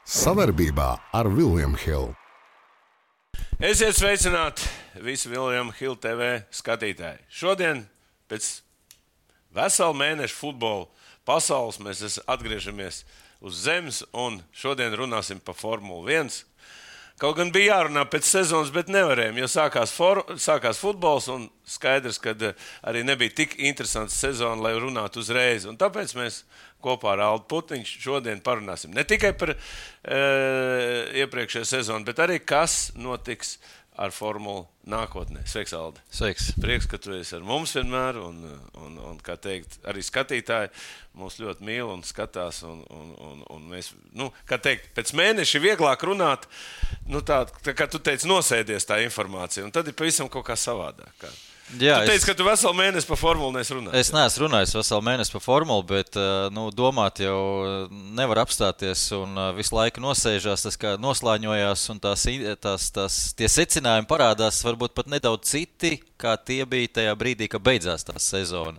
Savarbībā ar William Hill. Esiet sveicināti visi William Hill TV skatītāji. Šodien pēc vesela mēneša futbola pasaules mēs atgriežamies uz zemes un šodien runāsim par Formulu 1. Kaut gan bija jārunā pēc sezonas, bet nevarējām, jo sākās futbols un skaidrs, ka arī nebija tik interesants sezona, lai runātu uzreiz. Un tāpēc mēs kopā ar Aldu Putniņu šodien parunāsim ne tikai par iepriekšējo sezonu, bet arī kas notiks ar Formulu nākotnē. Sveiks, Aldi. Sveiks. Prieks, ka tu esi ar mums vienmēr un kā teikt, arī skatītāji mūs ļoti mīl un skatās un mēs, kā teikt, pēc mēneša vieglāk runāt, tā kā tu teici, nosēdies tā informācija un tad ir pavisam kaut kā savādāk. Jā, tu teici, ka tu veselu mēnesi par formulu neesi runājis. Es neesmu runājis veselu mēnesi par formulu, bet domāt jau nevar apstāties un visu laiku nosēžās, tas kā noslāņojās un tie secinājumi parādās varbūt pat nedaudz citi, kā tie bija tajā brīdī, kad beidzās tā sezona.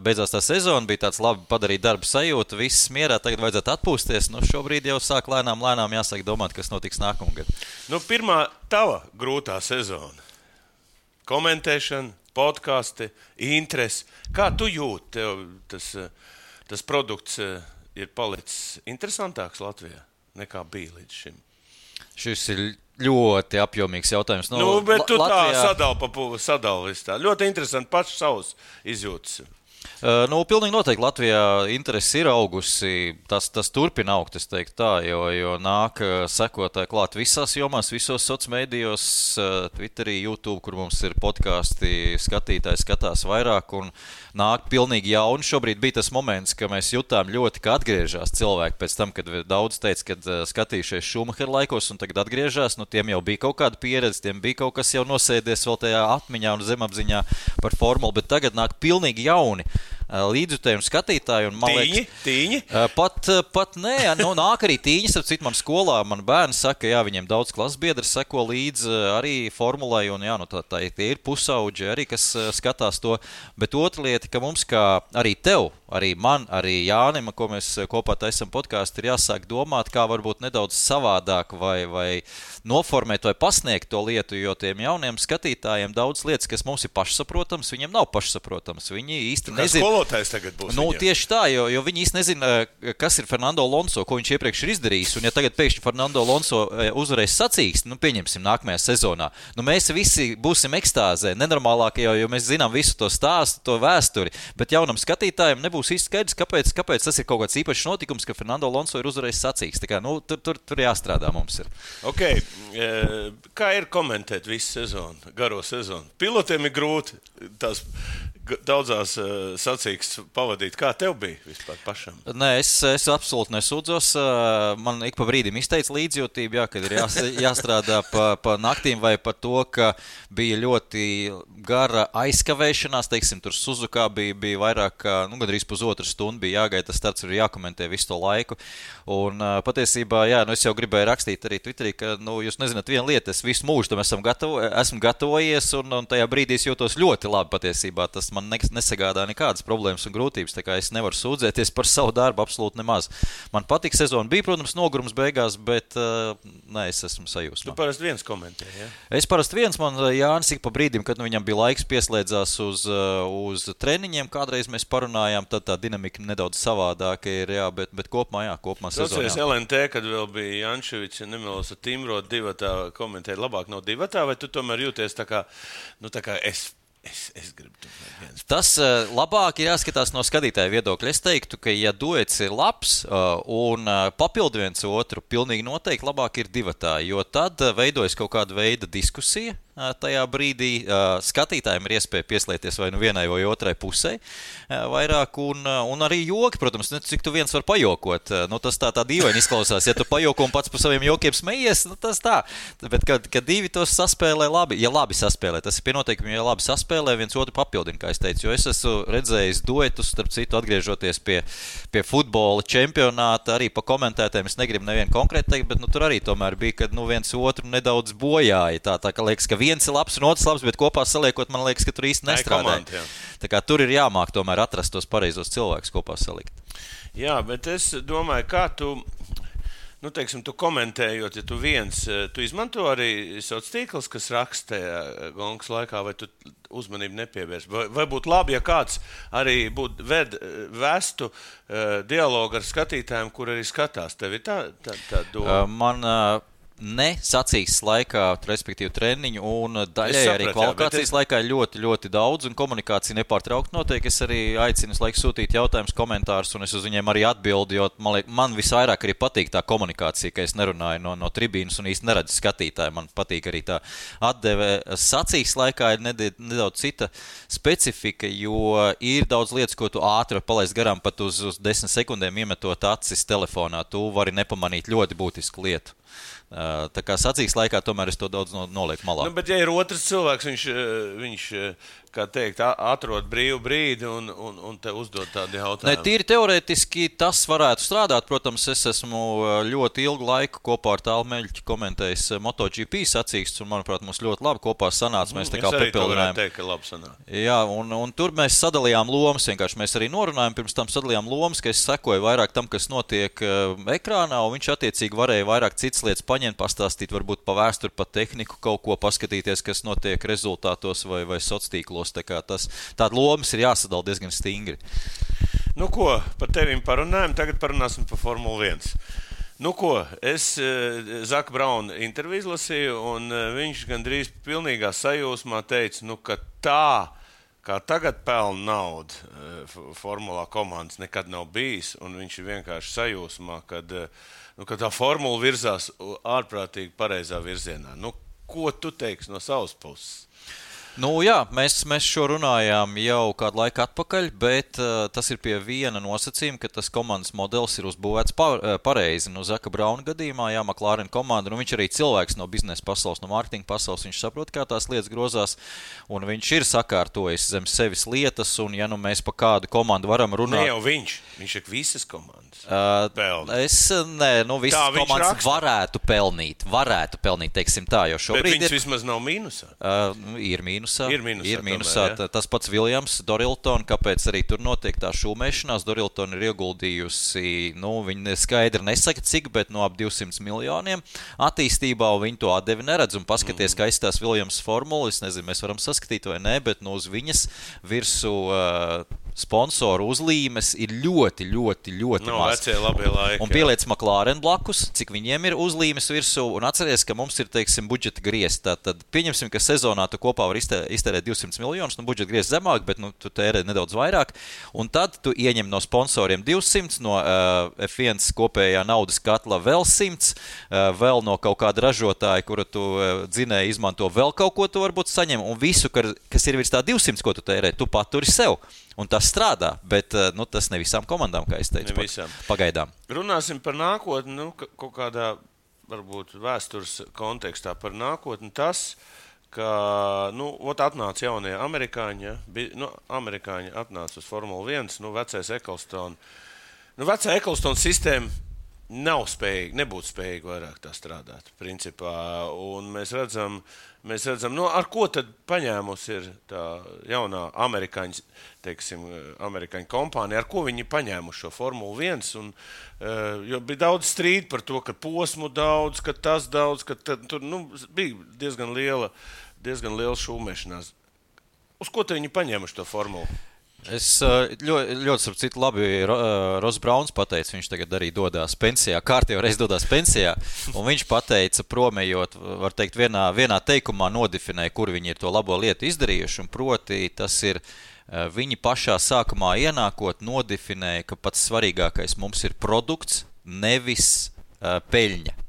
Beidzās tā sezona, bija tāds labi padarīt darbu sajūta, viss mierā, tagad vajadzētu atpūsties. Šobrīd jau sāk lēnām jāsāk domāt, kas notiks nākamgad. Pirmā tava grūtā sezona. Komentēšana, podkasti, interesi. Kā tu jūti, tev tas produkts ir palicis interesantāks Latvijā nekā bija līdz šim? Šis ir ļoti apjomīgs jautājums. Bet tu Latvijā... sadali visu tā. Ļoti interesanti paši savus izjūtas. Pilnīgi noteikti Latvijā interesi ir augusi, tas turpina augt, es teiktu tā, jo nāk sekotāji klāt visās jomās, visos sociālmedijos, Twitterī, YouTube, kur mums ir podkāsti, skatītāji skatās vairāk un nāk pilnīgi jauni. Šobrīd bija tas moments, ka mēs jutām ļoti, ka atgriežas cilvēki pēc tam, kad daudz teica, kad skatījušies Šumahera laikos un tagad atgriežas, tiem jau bija kaut kāda pieredze, tiem bija kaut kas jau nosēdies vēl tajā atmiņā un zemapziņā par formulu, bet tagad nāk pilnīgi jauni līdzjutēji un skatītāji. Un, man liekas, tīņi? Pat nē, nāk arī tīņas, ar citu man skolā, man bērni saka, jā, viņiem daudz klasbiedri seko līdz arī formulai, un jā, tie ir pusauģi arī, kas skatās to, bet otra lieta, ka mums kā arī tev, arī man, arī Jānim, ko mēs kopā taisam podkāstu, ir jāsāk domāt, kā varbūt nedaudz savādāk vai noformēt vai pasniegt to lietu, jo tiem jauniem skatītājiem daudz lietas, kas mums ir pašsaprotams, viņiem nav pašsaprotams. Viņi īsti nezina. Skolotājs tagad būs. Tieši tā, jo viņi īsti nezina, kas ir Fernando Alonso, ko viņš iepriekš ir izdarījis, un ja tagad pēkšņi Fernando Alonso uzvarēs sacīksti, pieņemsim nākamajā sezonā, mēs visi būsim ekstāzē, nenormālākajā, jo mēs zinām visu to stāstu, to vēsturi, bet jaunam skatītājiem nebūs īsti skaidrs, kāpēc tas ir kaut kāds īpašs notikums, ka Fernando Alonso ir uzvarējis sacīksti. Tā kā, tur jāstrādā mums ir. Okay. Kā ir komentēt visu sezonu, garo sezonu? Pilotiem ir grūti tās daudzās sacīkstes pavadīt. Kā tev bija vispār pašam? Nē, es absolūti nesūdzos. Man ik pa brīdim izteica līdzjūtību, kad ir jāstrādā pa naktīm vai par to, ka bija ļoti gara aizkavēšanās. Teiksim, tur Suzukā bija vairāk kā, gandrīz pusotru stundu bija jāgaida, tas starts ir jākomentē visu to laiku. Un patiesībā, es jau gribēju rakstīt arī Twitterī, ka, jūs nezināt vienu lietu, es visu mūžu tam esmu gatavojies un tajā brīdī es jūtos ļoti labi patiesībā. Tas man nesagādā nekādas problēmas un grūtības, tā kā es nevaru sūdzēties par savu darbu absolūti nemaz. Man patika sezona, bija, protams, nogurums beigās, bet es esmu sajūsmā. Tu parasti viens komentē, ja? Es parasti viens, man Jānis ik pa brīdim, kad viņam bija laiks, pieslēdzās uz treniņiem, kādreiz mēs parunājām, tad tā dinamika nedaudz savādāka ir, bet kopumā sezonā. Atceries LNT, kad vēl bija Jančevičs, nemelos ar Timro divatā komentēt, labāk nav divatā, vai tu tomēr jūties tā kā es gribu tomēr viens. Tas labāk ir jāskatās no skatītāja viedokļa. Es teiktu, ka ja duets ir labs un papildu viens otru, pilnīgi noteikti labāk ir divatā, jo tad veidojas kaut kāda veida diskusija. Tajā brīdī skatītājiem ir iespēja pieslēgties vai vienai vai otrai pusē vairāk, un arī joki, protams, cik tu viens var pajokot. Tas tā dīvaini izklausās, ja tu pajoko un pats par saviem jokiem smejies, tas tā. Bet, kad divi tos saspēlē labi, ja labi saspēlē, tas ir pie noteikumiem, ja labi saspēlē, viens otru papildina, kā es teicu, jo es esmu redzējis duetus, starp citu, atgriežoties pie futbola čempionāta, arī pa komentētēm, es negribu nevienu konkrēti teikt, bet tur arī tomēr bija, kad viens otru nedaudz bojāja, tā ka liekas, ka viens ir labs un otrs labs, bet kopā saliekot, man liekas, ka tur īsti nestrādāja. Tā kā tur ir jāmāk tomēr atrast tos pareizos cilvēkus kopā salikt. Jā, bet es domāju, kā tu teiksim, tu komentējot, ja tu izmanto arī sociālos tīklus, kas raksta gongas laikā, vai tu uzmanību nepievērs? Vai būtu labi, ja kāds arī vestu dialogu ar skatītājiem, kur arī skatās? Tev ir tā doma? Ne sacīkstes laikā, respektīvi treniņu, un daļai arī kvalifikācijas laikā ļoti, ļoti daudz, un komunikācija nepārtraukti notiek. Es arī aicinu laiku sūtīt jautājumus, komentārus, un es uz viņiem arī atbildu, jo man visvairāk arī patīk tā komunikācija, ka es nerunāju no tribīnas un īsti neredzu skatītāju. Man patīk arī tā atdeve. Sacīkstes laikā ir nedaudz cita specifika, jo ir daudz lietas, ko tu ātri palaist garām, pat uz 10 sekundēm iemetot acis telefonā. Tu vari nepamanīt ļoti būtisku lietu. Tā kā sacīkstes laikā tomēr es to daudz nolieku malā. Bet ja ir otrs cilvēks, viņš kā teikt, atrod brīvu brīdi un te uzdod tādu jautājumu. Tīri teorētiski tas varētu strādāt. Protams, es esmu ļoti ilgu laiku kopā ar Tālu Meļķi komentējis MotoGP sacīkstes, un, manuprāt, mums ļoti labi kopā sanāca. Mēs tā kā papildinājām. Teikt, ka labi sanāca. Jā, un tur mēs sadalījām lomas, vienkārši mēs arī norunājām, pirms tam sadalījām lomas, ka es sekoju vairāk tam, kas notiek ekrānā, un viņš attiecīgi varēja vairāk citas lietas paņemt, pastāstīt, varbūt pa vēsturi, pa tehniku kaut ko paskatīties, kas notiek rezultātos vai sociālos tīklos. Tāda lomas ir jāsadala diezgan stingri. Par tevim parunājam, tagad parunāsim par Formuli 1. Es Zaka Brauna interviju izlasīju, un viņš gandrīz pilnīgā sajūsmā teica, ka tā, kā tagad pelna naudu formulā komandas nekad nav bijis, un viņš ir vienkārši sajūsmā, kad tā formula virzās ārprātīgi pareizā virzienā. Ko tu teiksi no savas puses? Jā, mēs šo runājām jau kādu laiku atpakaļ, bet tas ir pie viena nosacījuma, ka tas komandas modelis ir uzbūvēts pareizi. Zaka Brauna gadījumā, McLaren komanda, viņš arī cilvēks no biznesa pasaules, no mārketinga pasaules, viņš saprot, kā tās lietas grozās, un viņš ir sakārtojis zem sevis lietas, un ja mēs pa kādu komandu varam runāt... Ne jau viņš ir visas komandas pelnīt. Visas komandas varētu pelnīt, teiksim tā, jo šobrīd bet viņš vismaz nav mīnusā. Ir mīnusā. Ir mīnusā. Tas pats Viljams, Dorilton, kāpēc arī tur notiek tā šūmēšanās. Dorilton ir ieguldījusi, viņi skaidri nesaka cik, bet ap 200 miljoniem attīstībā, un viņi to atdevi neredz. Un paskaties, kā izstās Viljams formula, es nezinu, mēs varam saskatīt vai nē, bet uz viņas virsū sponsoru uzlīmes ir ļoti, ļoti, ļoti maz. Vecie labie laiki. Un pieliec McLaren blakus, cik viņiem ir uzlīmes virsū, un atceries, ka mums ir, teiksim, budžeta griezti. Tad pieņemsim, ka sezonā tu kopā var iztērēt 200 miljonus, budžeta griezti zemāk, bet tu tērē nedaudz vairāk, un tad tu ieņem no sponsoriem 200, no F1 kopējā naudas katla vēl 100, vēl no kaut kāda ražotāja, kura tu dzinēji izmanto vēl kaut ko tu varbūt saņem, un visu, kas ir virs tā 200, ko tu tērē, tu paturi sev. Un tas strādā, bet tas ne visām komandām, kā es teicu, pagaidām. Runāsim par nākotni, kaut kādā, varbūt, vēstures kontekstā par nākotni. Tas, ka, atnāca jaunie amerikāņi, amerikāņi atnāca uz Formula 1, vecais Ecclestone. Vecā Ecclestone sistēma nebūtu spējīga vairāk tā strādāt, principā. Un mēs redzam, ar ko tad paņēmusi ir tā jaunā amerikāņu kompānija, ar ko viņi paņēmuši šo Formulu 1, jo bija daudz strīdu par to, ka posmu daudz, ka tas daudz, ka tur, bija diezgan liela šūmēšanās. Uz ko te viņi paņēmuši to formulu? Es ļoti starp citu labi Ross Brauns pateica, viņš tagad arī dodās pensijā, kārtībā reiz dodās pensijā, un viņš pateica, promējot, var teikt, vienā teikumā nodefinēja, kur viņi ir to labo lietu izdarījuši, un proti tas ir, viņi pašā sākumā ienākot nodefinēja, ka pats svarīgākais mums ir produkts, nevis peļņa.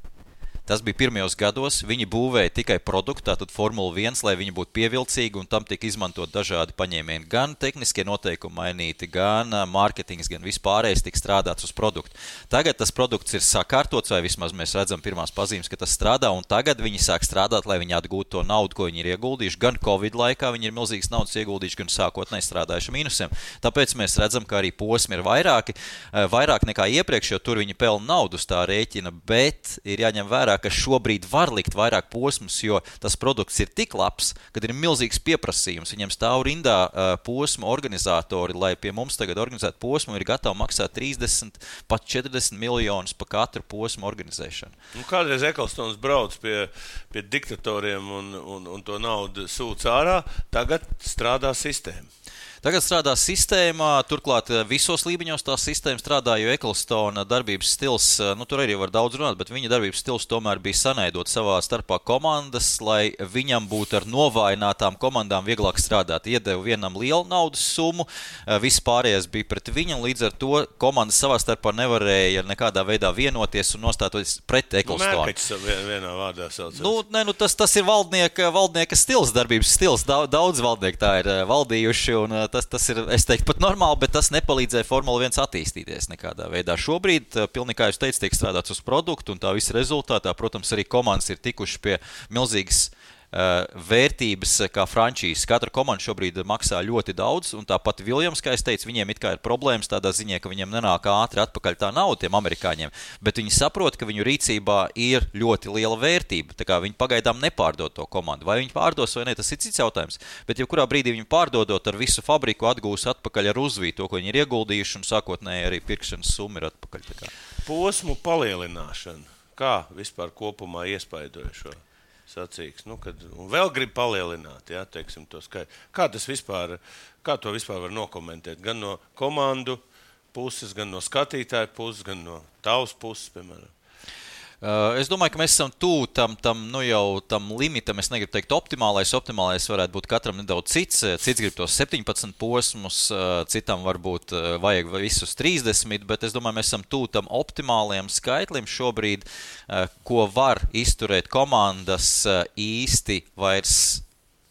Tas bija pirmajos gados, viņi būvēja tikai produktu, tātad Formula 1, lai viņi būtu pievilcīgi, un tam tika izmantot dažādi paņēmieni. Gan tehniskie noteikumi mainīti, gan mārketings, gan vispārējais tika strādāts uz produktu. Tagad tas produkts ir sakārtots, vai vismaz mēs redzam pirmās pazīmes, ka tas strādā, un tagad viņi sāk strādāt, lai viņi atgūtu to naudu, ko viņi ir ieguldījuši. Gan Covid laikā viņi ir milzīgas naudas ieguldījuši, gan sākotnēji strādājuši mīnusiem. Tāpēc mēs redzam, ka arī posmi ir vairāk nekā iepriekš, jo tur viņi pelna naudu uz tā rēķina, bet ir jāņem vērā, vērā, ka šobrīd var likt vairāk posmus, jo tas produkts ir tik labs, kad ir milzīgs pieprasījums. Viņam stāv rindā posmu organizatori, lai pie mums tagad organizētu posmu ir gatavi maksāt 30, pat 40 miljonus par katru posmu organizēšanu. Kādreiz Ecclestons brauc pie diktatoriem un to naudu sūc ārā, tagad strādā sistēma. Tagad strādā sistēma, turklāt visos līmeņos tā sistēma strādā, jo Ecclestona darbības stils, tur arī var daudz runāt, bet viņa darbības stils tomēr bija sanaidot savā starpā komandas, lai viņam būtu ar novājinātām komandām vieglāk strādāt. Iedeva vienam lielu naudas summu, viss pārējais bija pret viņu, un līdz ar to komandas savā starpā nevarēja nekādā veidā vienoties un nostāties pret Ecclestonu. Mērkaķis vienā vārdā saucās. Tas ir valdnieka stils, darbības stils. Daudz valdnieku tā ir valdījuši, un tas ir, es teiktu, pat normāli, bet tas nepalīdzēja Formula 1 attīstīties nekādā veidā. Šobrīd, pilnīgi kā jūs teicat, tiek strādāts uz produktu, un tā visa rezultātā, protams, arī komandas ir tikuši pie milzīgas vērtības kā frančīzes. Katra komanda šobrīd maksā ļoti daudz, un tāpat Williams, kā es teicu, viņiem it kā ir problēmas tādā ziņā, ka viņiem nenāk ātri atpakaļ tā nauda tiem amerikāņiem, bet viņi saprot, ka viņu rīcībā ir ļoti liela vērtība, tā kā viņi pagaidām nepārdod to komandu. Vai viņi pārdos vai ne, tas ir cits jautājums, bet jebkurā brīdī viņi pārdodot ar visu fabriku atgūs atpakaļ ar uzvītu to, ko viņi ir ieguldījuši, un sākotnēji arī pirkšanas summa ir atpakaļ. Tā kā. Posmu palielināšana. Kā vispār kopumā iespaidoja šo sacīks, un vēl grib palielināt, teiksim, to skaitu. Kā to vispār var nokomentēt? Gan no komandu puses, gan no skatītāju puses, gan no tavas puses, piemēram. Es domāju, ka mēs esam tuvu tam limitam, es negribu teikt optimālais varētu būt katram nedaudz cits grib tos 17 posmus, citam varbūt vajag visus 30, bet es domāju, mēs esam tuvu tam optimālajam skaitlim šobrīd, ko var izturēt komandas īsti vairs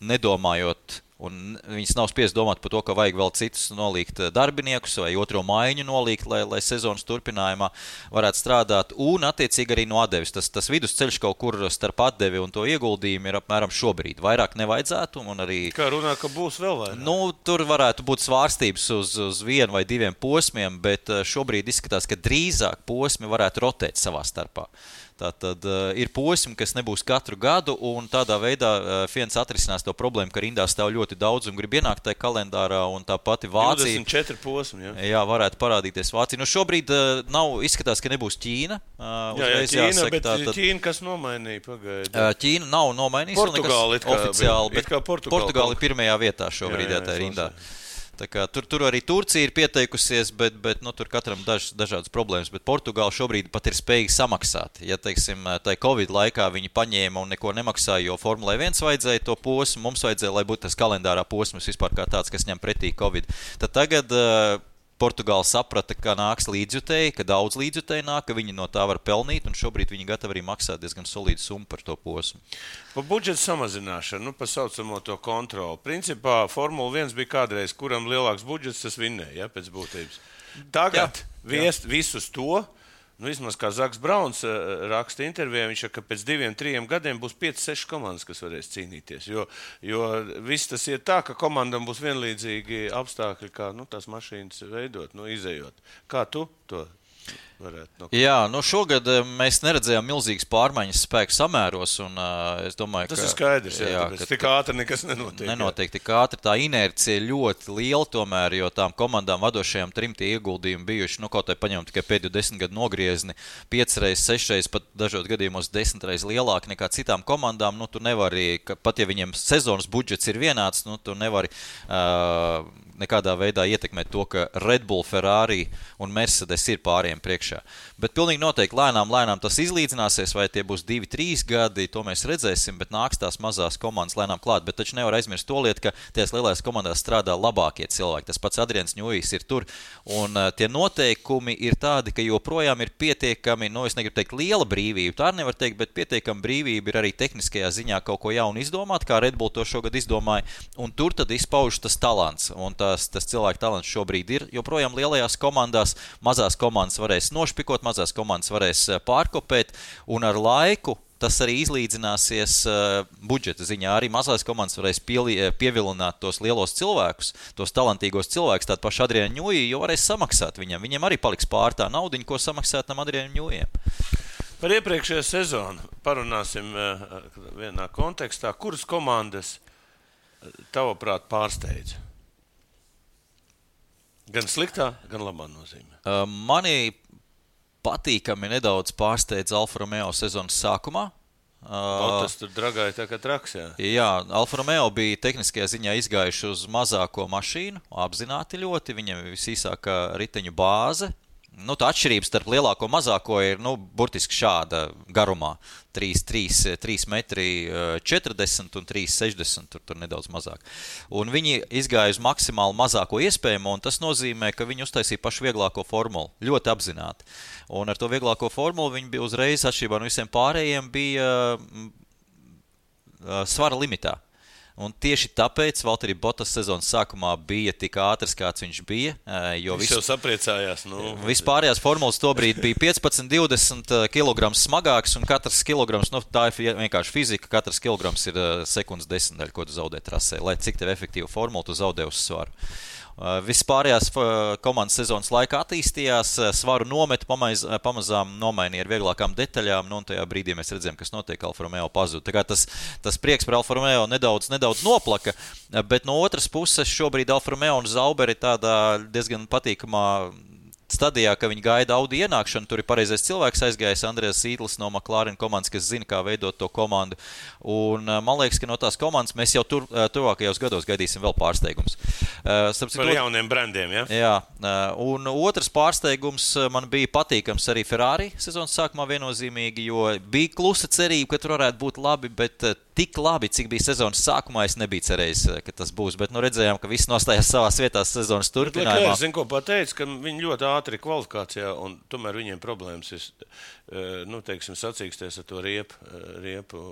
nedomājot, un viņas nav spiest domāt par to, ka vajag vēl citus nolikt darbiniekus vai otro maiņu nolikt, lai sezonas turpinājumā varētu strādāt, un attiecīgi arī no atdevis. Tas vidusceļš kaut kur starp atdevi un to ieguldījumu ir apmēram šobrīd. Vairāk nevajadzētu, un arī... Kā runā, ka būs vēl vairāk? Tur varētu būt svārstības uz vienu vai diviem posmiem, bet šobrīd izskatās, ka drīzāk posmi varētu rotēt savā starpā. Tātad ir posmi, kas nebūs katru gadu, un tādā veidā Fiens atrisinās to problēmu, ka rindā stāv ļoti daudz un grib ienākt tajā kalendārā, un tā pati Vācija... 24 posmi, Jā, varētu parādīties Vācija. Šobrīd izskatās, ka nebūs Ķīna. Ķīna, bet Ķīna kas nomainīja pagaidi? Ķīna nav nomainījusi. Portugāli oficiāli, bet Portugāli pirmajā vietā šobrīd tā rindā. Tā kā, tur arī Turcija ir pieteikusies, bet tur katram dažādas problēmas, bet Portugāla šobrīd pat ir spējīga samaksāt. Ja, teiksim, tai Covid laikā viņi paņēma un neko nemaksāja, jo Formulai 1 vajadzēja to posmu, mums vajadzēja, lai būtu tas kalendārā posms vispār kā tāds, kas ņem pretī Covid. Tad tagad Portugāla saprata, ka nāks līdzjutēji, ka daudz līdzjutēji nāk, ka viņi no tā var pelnīt, un šobrīd viņi gatavi arī maksāt diezgan solīdu summu par to posmu. Par budžeta samazināšanu, par saucamo to kontroli. Principā Formula 1 bija kādreiz, kuram lielāks budžets, tas vinnēja, pēc būtības. Tagad visus to, vismaz kā Zaks Brauns raksta intervijā, viņš saka, ka pēc 2-3 gadiem būs 5-6 komandas, kas varēs cīnīties. Jo viss tas ir tā, ka komandam būs vienlīdzīgi apstākļi, kā tās mašīnas veidot, izejot. Kā tu to varētu? Jā, šogad mēs neredzējām milzīgas pārmaiņas spēku samēros, un es domāju, tas ir skaidrs, tāpēc tik ātri nekas nenotiek. Nenotiek tik ātri, tā inercija ļoti liela tomēr, jo tām komandām vadošajām 3 tie ieguldījumi bijuši, kaut vai paņemam tikai pēdējo 10 gadu nogriezni, 5 reizes, 6 reizes, pat dažos gadījumos 10 reizes lielāki nekā citām komandām, tu nevari, pat ja viņiem sezonas budžets ir vienāds, tu nevari nekādā veidā ietekmēt to, ka Red Bull, Ferrari un Mercedes ir pāriem priekšā. Bet pilnīgi noteikti lēnām tas izlīdzināsies, vai tie būs 2-3 gadi, to mēs redzēsim, bet nāks tās mazās komandas lēnām klāt. Bet taču nevar aizmirst to lietu, ka tajās lielās komandās strādā labākie cilvēki. Tas pats Adrians Ņujis ir tur, un tie noteikumi ir tādi, ka joprojām ir pietiekami, es negribu teikt liela brīvība, tā nevar teikt, bet pietiekami brīvība ir arī tehniskajā ziņā kaut ko jaunu izdomāt, kā Red Bull to šogad izdomāja, un tur tad izpauž tas talants, un tas cilvēku talants šobrīd ir joprojām lielajās komandās, mazās komandas varēs nošpikot, mazās komandas varēs pārkopēt, un ar laiku tas arī izlīdzināsies budžeta ziņā. Arī mazās komandas varēs pievilināt tos lielos cilvēkus, tos talantīgos cilvēkus, tādu pašu Adrianu Ņuji, jo varēs samaksāt viņam. Viņiem arī paliks pār tā naudiņa, ko samaksāt tam Adrianu Ņujiem. Par iepriekšējo sezonu parunāsim vienā kontekstā. Kuras komandas tavuprāt pārsteidza? Gan sliktā, gan labā nozīmē. Mani patīkami nedaudz pārsteidz Alfa Romeo sezonas sākumā. Tas tur dragāja tā kā traks, jā. Jā, Alfa Romeo bija tehniskajā ziņā izgājuši uz mazāko mašīnu, apzināti ļoti, viņam visīsākā riteņu bāze. Tā atšķirība starp lielāko un mazāko ir, burtiski šāda garumā. 3 metri 40 un 3,60, tur nedaudz mazāk. Un viņi izgāja uz maksimāli mazāko iespējamo, un tas nozīmē, ka viņi uztaisīja pašu vieglāko formulu, ļoti apzināti. Un ar to vieglāko formulu viņi bija uzreiz, atšķirībā no visiem pārējiem, bija svara limitā. Un tieši tāpēc Valtteri Bottas sezonas sākumā bija tik ātrs, kāds viņš bija. Viņš jau sapriecājās. Vispārējās formulas tobrīd bija 15-20 kg smagāks, un katrs kilograms, tā ir vienkārši fizika, katrs kilograms ir sekundes desmitdaļa, ko tu zaudē trasē, lai cik tev efektīvu formulu tu zaudē uz svaru. Vispārējās komandas sezonas laikā attīstījās, svaru nometu pamazām nomainīja ar vieglākām detaļām, un tajā brīdī mēs redzējām, kas notiek, Alfa Romeo pazuda. Tā kā tas prieks par Alfa Romeo nedaudz noplaka, bet no otras puses šobrīd Alfa Romeo un Zauber ir tādā diezgan patīkamā stadijā, ka viņi gaida Audi ienākšanu, tur ir pareizais cilvēks aizgājis, Andrēs Sītlis no McLaren komandas, kas zina, kā veidot to komandu. Un man liekas, ka no tās komandas mēs jau tuvākajos gados gaidīsim vēl pārsteigums. Par jauniem brandiem, ja? Jā, un otrs pārsteigums man bija patīkams arī Ferrari sezonas sākumā viennozīmīgi, jo bija klusa cerība, ka tur varētu būt labi, bet tik labi, cik bija sezonas sākumā, es nebiju cerējis, ka tas būs, bet redzējām, ka viss nostājās savās vietās sezonas turpinājumā. Es zinu, ko pateicu, ka viņi ļoti ātri kvalifikācijā, un tomēr viņiem problēmas ir, sacīksties ar to riepu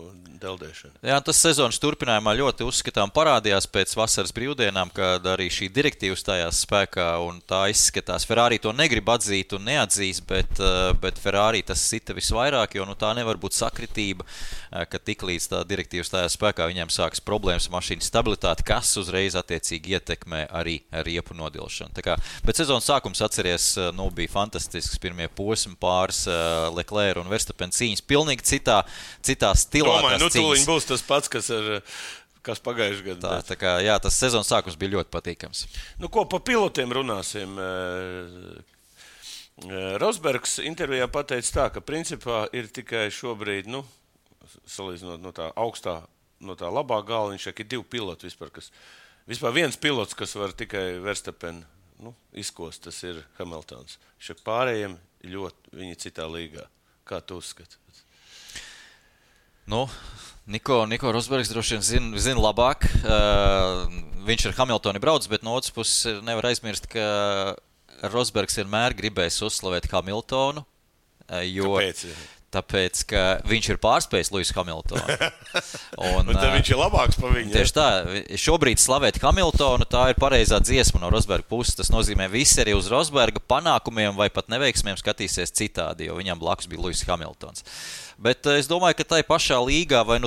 deldēšanu. Jā, tas sezonas turpinājumā ļoti uzskatām parādījās pēc vasaras brīvdienām, kad arī šī direktīva stājās spēkā, un tā izskatās. Ferrari to negrib atzīt un neatzīs, bet Ferrari tas sita visvairāk, jo tā nevar būt sakritība, ka tiklīdz tā direktīva stājās spēkā, viņiem sākas problēmas mašīnas stabilitāti, kas uzreiz attiecīgi ietekmē arī riepu nodilšanu. Bet sezonas sākums atceries, bija fantastisks, pirmie posmi pāris Leclerc un Verstappen cīņas, pilnīgi citā stilā. Domāju, tūliņ būs tas pats, kas pagājuši gadu. Jā, tas sezonas sākums bija ļoti patīkams. Ko pa pilotiem runāsim? Rosbergs intervijā pateica tā, ka principā ir tikai šobrīd, salīdzinot no tā augstā, no tā labā gala, viņš ir 2 piloti vispār viens pilots, kas var tikai Verstappen izkost, tas ir Hamiltons. Viņš pārējiem ļoti viņi citā līgā. Kā tu uzskati? Niko Rosbergs droši vien zina labāk. Viņš ar Hamiltoni brauc, bet no otras puses nevar aizmirst, ka Rosbergs vienmēr gribējis uzslavēt Hamiltonu. Kāpēc? Tāpēc, ka viņš ir pārspējis Lewisu Hamiltonu. Un tad viņš ir labāks par viņu. Tieši tā. Šobrīd slavēt Hamiltonu, tā ir pareizā dziesma no Rosberga puses. Tas nozīmē, visi arī uz Rosberga panākumiem vai pat neveiksmiem skatīsies citādi, jo viņam blakus bija Lewis Hamiltons. Bet es domāju, ka tai pašā līgā vai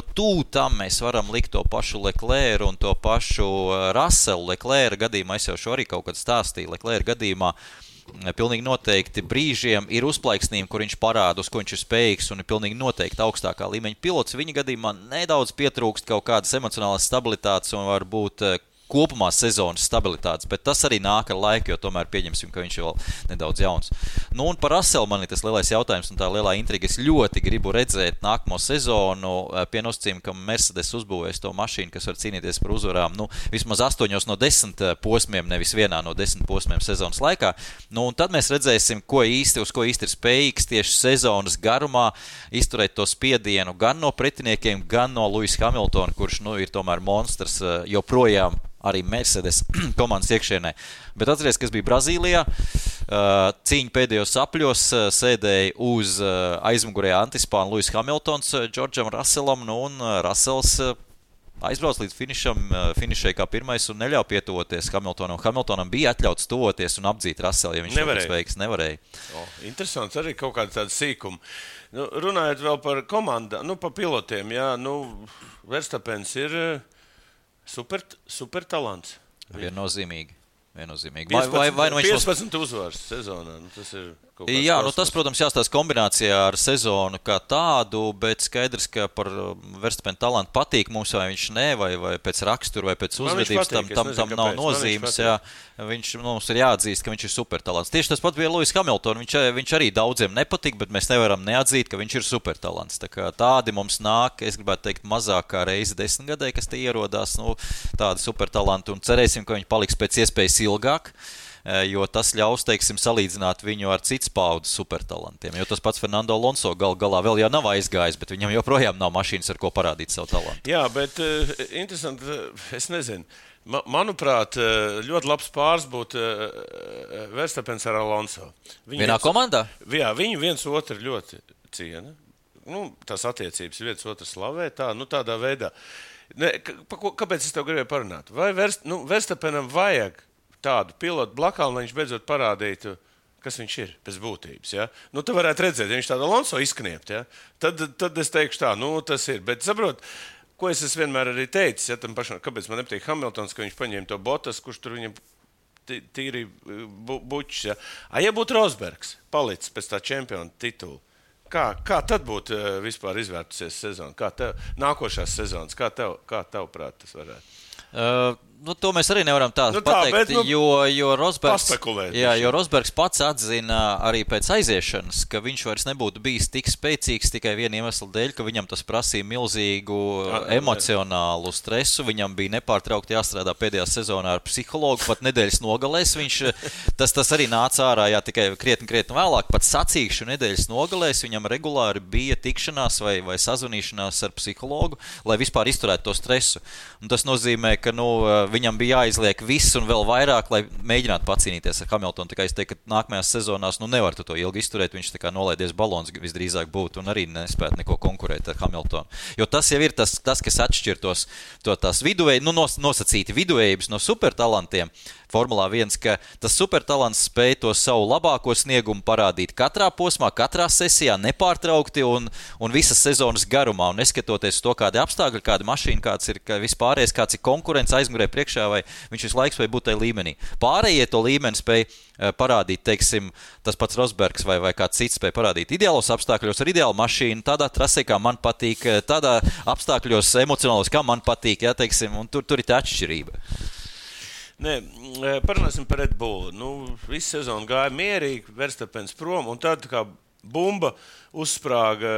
tam mēs varam likt to pašu Leclerc un to pašu Russellu. Leclerc gadījumā es jau šo arī kaut kad stāstīju. Leclerc gadījumā pilnīgi noteikti brīžiem ir uzplaiksnījumi, kur viņš parāda, uz ko viņš ir spējīgs, un ir pilnīgi noteikti augstākā līmeņa pilots. Viņa gadījumā nedaudz pietrūkst kaut kādas emocionālas stabilitātes un varbūt kopumā sezonas stabilitātes, bet tas arī nāk ar laiku, jo tomēr pieņemsim, ka viņš ir vēl nedaudz jauns. Un par Russellu man ir tas lielais jautājums un tā lielā intriga. Es ļoti gribu redzēt nākamo sezonu pie nosacījuma, ka Mercedes uzbūvēs to mašīnu, kas var cīnīties par uzvarām, vismaz 8 no 10 posmiem, nevis vienā no 10 posmiem sezonas laikā. Un tad mēs redzēsim, uz ko īsti ir spējīgs tieši sezonas garumā izturēt to spiedienu gan no pretiniekiem, gan no Lewisa Hamiltona, kurš ir tomēr monstrs joprojām arī Mercedes komandas iekšienē. Bet atceries, kas bija Brazīlijā, cīņa pēdējos apļos, sēdēja uz aizmugurējā antispāna Lewis Hamiltons Džordžam Russellam, un Russells aizbrauc līdz finišai kā pirmais un neļauj pietuvoties Hamiltonam. Hamiltonam bija atļauts tuvoties un apdzīt Russellu, ja viņš šobrīd veiks. Nevarēja. Interesants arī kaut kāda tāda sīkuma. Runājot vēl par komandā, par pilotiem, Verstappens ir super talants. Viennozīmīgi. 15 uzvaras sezonā. Tas ir Jā, tas, protams, jāstāsta kombinācijā ar sezonu kā tādu, bet skaidrs, ka par Verstapena talantu patīk mums, vai viņš ne, vai pēc rakstura, vai pēc uzvedības, tam nav nozīmes. Mums ir jāatzīst, ka viņš ir supertalants. Tieši tas pat bija Lewis Hamilton. Viņš arī daudziem nepatīk, bet mēs nevaram neatzīt, ka viņš ir supertalants. Tā kā tādi mums nāk, es gribētu teikt, mazāk kā reizi 10 gadē, kas te ierodās, tādi supertalanti, un cerēsim, ka viņi paliks pēc iespējas ilgāk. Jo tas ļaus, teiksim, salīdzināt viņu ar citas paudzes supertalantiem. Jo tas pats Fernando Alonso galā vēl jau nav aizgājis, bet viņam joprojām nav mašīnas, ar ko parādīt savu talantu. Jā, bet interesanti, es nezinu. Manuprāt, ļoti labs pāris būtu Verstapens ar Alonso. Vienā komandā? Jā, viņi viens otru ļoti ciena. Tās attiecības viens otru slavē, tādā veidā. Kāpēc es tev gribēju parunāt? Vai Verstapenam vajag tādu pilotu blakām, lai viņš beidzot parādītu, kas viņš ir pēc būtības. Ja? Tu varētu redzēt, ja viņš tādu Alonso izkniept, ja? tad es teikšu tā, tas ir. Bet saprot, ko es vienmēr arī teicis, ja tam pašam, kāpēc man nepatīk Hamiltons, ka viņš paņēma to Bottas, kurš tur viņam tīri bučs. Ja? Ja būtu Rosbergs palicis pēc tā čempiona titula, kā tad būtu vispār izvērtusies sezona? Nākošās sezonas, kā tavuprāt tas varētu? To mēs arī nevaram pateikt, jo Rosbergs pats atzina arī pēc aiziešanas, ka viņš vairs nebūtu bijis tik spēcīgs tikai viena iemesla dēļ, ka viņam tas prasīja milzīgu emocionālu stresu. Viņam bija nepārtraukti jāstrādā pēdējā sezonā ar psihologu, pat nedēļas nogalēs. Tas arī nāca ārā tikai krietni vēlāk, pat sacīkšu nedēļas nogalēs. Viņam regulāri bija tikšanās vai sazvanīšanās ar psihologu, lai vispār izturētu to stresu. Un tas nozīmē, ka viņam bija jāizliek viss un vēl vairāk, lai mēģinātu pacīnīties ar Hamiltonu. Tā kā es teiktu, ka nākamajās sezonās nevar to ilgi izturēt. Viņš tā kā nolaidies balons visdrīzāk būtu un arī nespētu neko konkurēt ar Hamiltonu. Jo tas jau ir tas kas atšķir tās nosacīti viduvējības no supertalantiem. Formulā 1, ka tas supertalants spēj to savu labāko sniegumu parādīt katrā posmā, katrā sesijā, nepārtraukti un visas sezonas garumā. Un neskatoties to, kādi apstākļi, kāda mašīna, kāds ir vispārējais, kāds ir konkurence aizmugurē priekšā, vai viņš visu laiku spēj būt tajā līmenī. Pārējie to līmeni spēj parādīt, teiksim, tas pats Rosbergs vai kāds cits spēj parādīt ideālos apstākļos ar ideālu mašīnu, tādā trasē, kā man patīk, tādā apstākļos emocionālos, kā man patīk, teiksim, un tur ir tā atšķirība. Nē, parunāsim par Red Bull. Visu sezonu gāja mierīgi, Verstapens prom, un tad kā bumba uzsprāga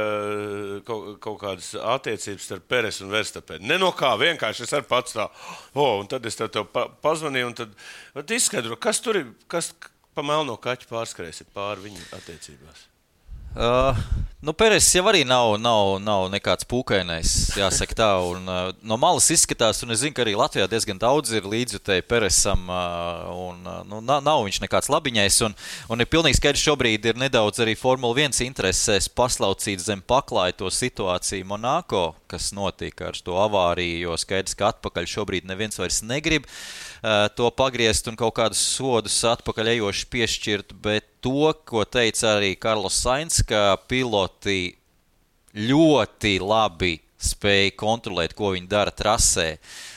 kaut kādas attiecības starp Peres un Verstapenu. Ne no kā, vienkārši es ar pats tā, un tad es tev pazvanīju, un tad izskaidro, kas tur ir, kas pa melno kaķu pārskrēs pāri viņu attiecībās. Peres jau arī nav nekāds pūkainais, jāsaka tā, un no malas izskatās, un es zinu, ka arī Latvijā diezgan daudz ir līdzjutēji Peresam, un nav viņš nekāds labiņais, un ir pilnīgi skaidrs šobrīd ir nedaudz arī Formula 1 interesēs paslaucīt zem paklāja to situāciju Monako, kas notika ar to avāriju, jo skaidrs, ka atpakaļ šobrīd neviens vairs negrib to pagriezt un kaut kādus sodus atpakaļ ejoši piešķirt, bet to, ko teica arī Carlos Sainz, ka piloti ļoti labi spēja kontrolēt, ko viņi dara trasē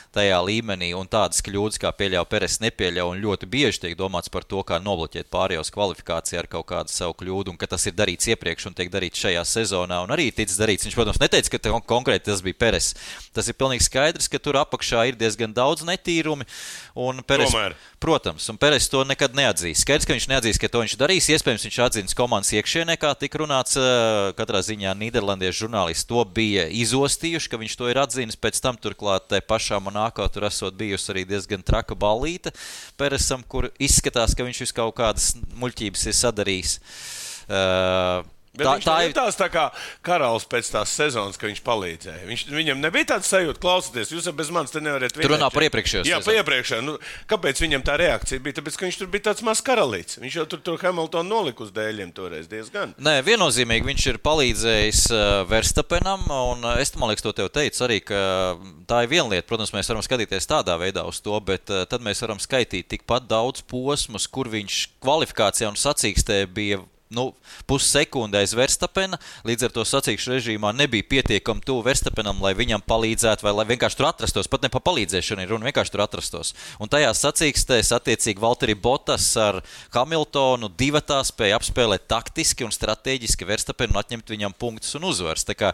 tajā līmenī, un tādas kļūdas, kā pieļauj Peres, nepieļauj, un ļoti bieži tiek domāts par to, kā nobloķēt pārējos kvalifikācijā ar kaut kādu savu kļūdu, un ka tas ir darīts iepriekš un tiek darīts šajā sezonā, un arī ticis darīts. Viņš, protams, neteica, ka konkrēti tas bija Peres. Tas ir pilnīgi skaidrs, ka tur apakšā ir diezgan daudz netīrumi, un Peres, protams, un Peres to nekad neatzīs. Skaidrs, ka viņš neatzīs, ka to viņš darīs. Iespējams, viņš atzins komandas iekšienē, kā tika runāts, katrā ziņā nīderlandiešu žurnālisti to bija izostījuši, ka viņš to ir atzinis, pēc tam turklāt pašā Monako tur esot bijusi arī diezgan traka ballīte Peresam, kur izskatās, ka viņš kaut kādas muļķības ir sadarījis. Bet viņš ir tā kā karalis pēc tās sezonas, ka viņš palīdzēja. Viņam nebija tāds sajūta, klausoties, jūs bez manis te nevarat vinēt. Tur runā par iepriekšējo sezonu. Jā, par iepriekšējo. Kāpēc viņam tā reakcija bija? Tāpēc, ka viņš tur bija tāds mazs karalīts. Viņš jau tur Hamiltonu nolika uz dēļiem toreiz diezgan. Nē, viennozīmīgi viņš ir palīdzējis Verstapenam, un es, man liekas, to tev teicu arī, ka tā ir viena lieta. Protams, mēs varam skatīties tādā veidā uz to, bet tad mēs varam skaitīt tikpat daudz posmus, kur viņš kvalifikācijā un sacīkstē bija pussekundē aiz Verstapena, līdz ar to sacīkšu režīmā nebija pietiekami tuvu Verstapenam, lai viņam palīdzētu, vai lai vienkārši tur atrastos, pat ne pa palīdzēšanu ir runa, vienkārši tur atrastos. Un tajās sacīkstēs attiecīgi Valtteri Bottas ar Hamiltonu divatā spēja apspēlēt taktiski un strateģiski Verstapenu un atņemt viņam punktus un uzvaras. Tā kā,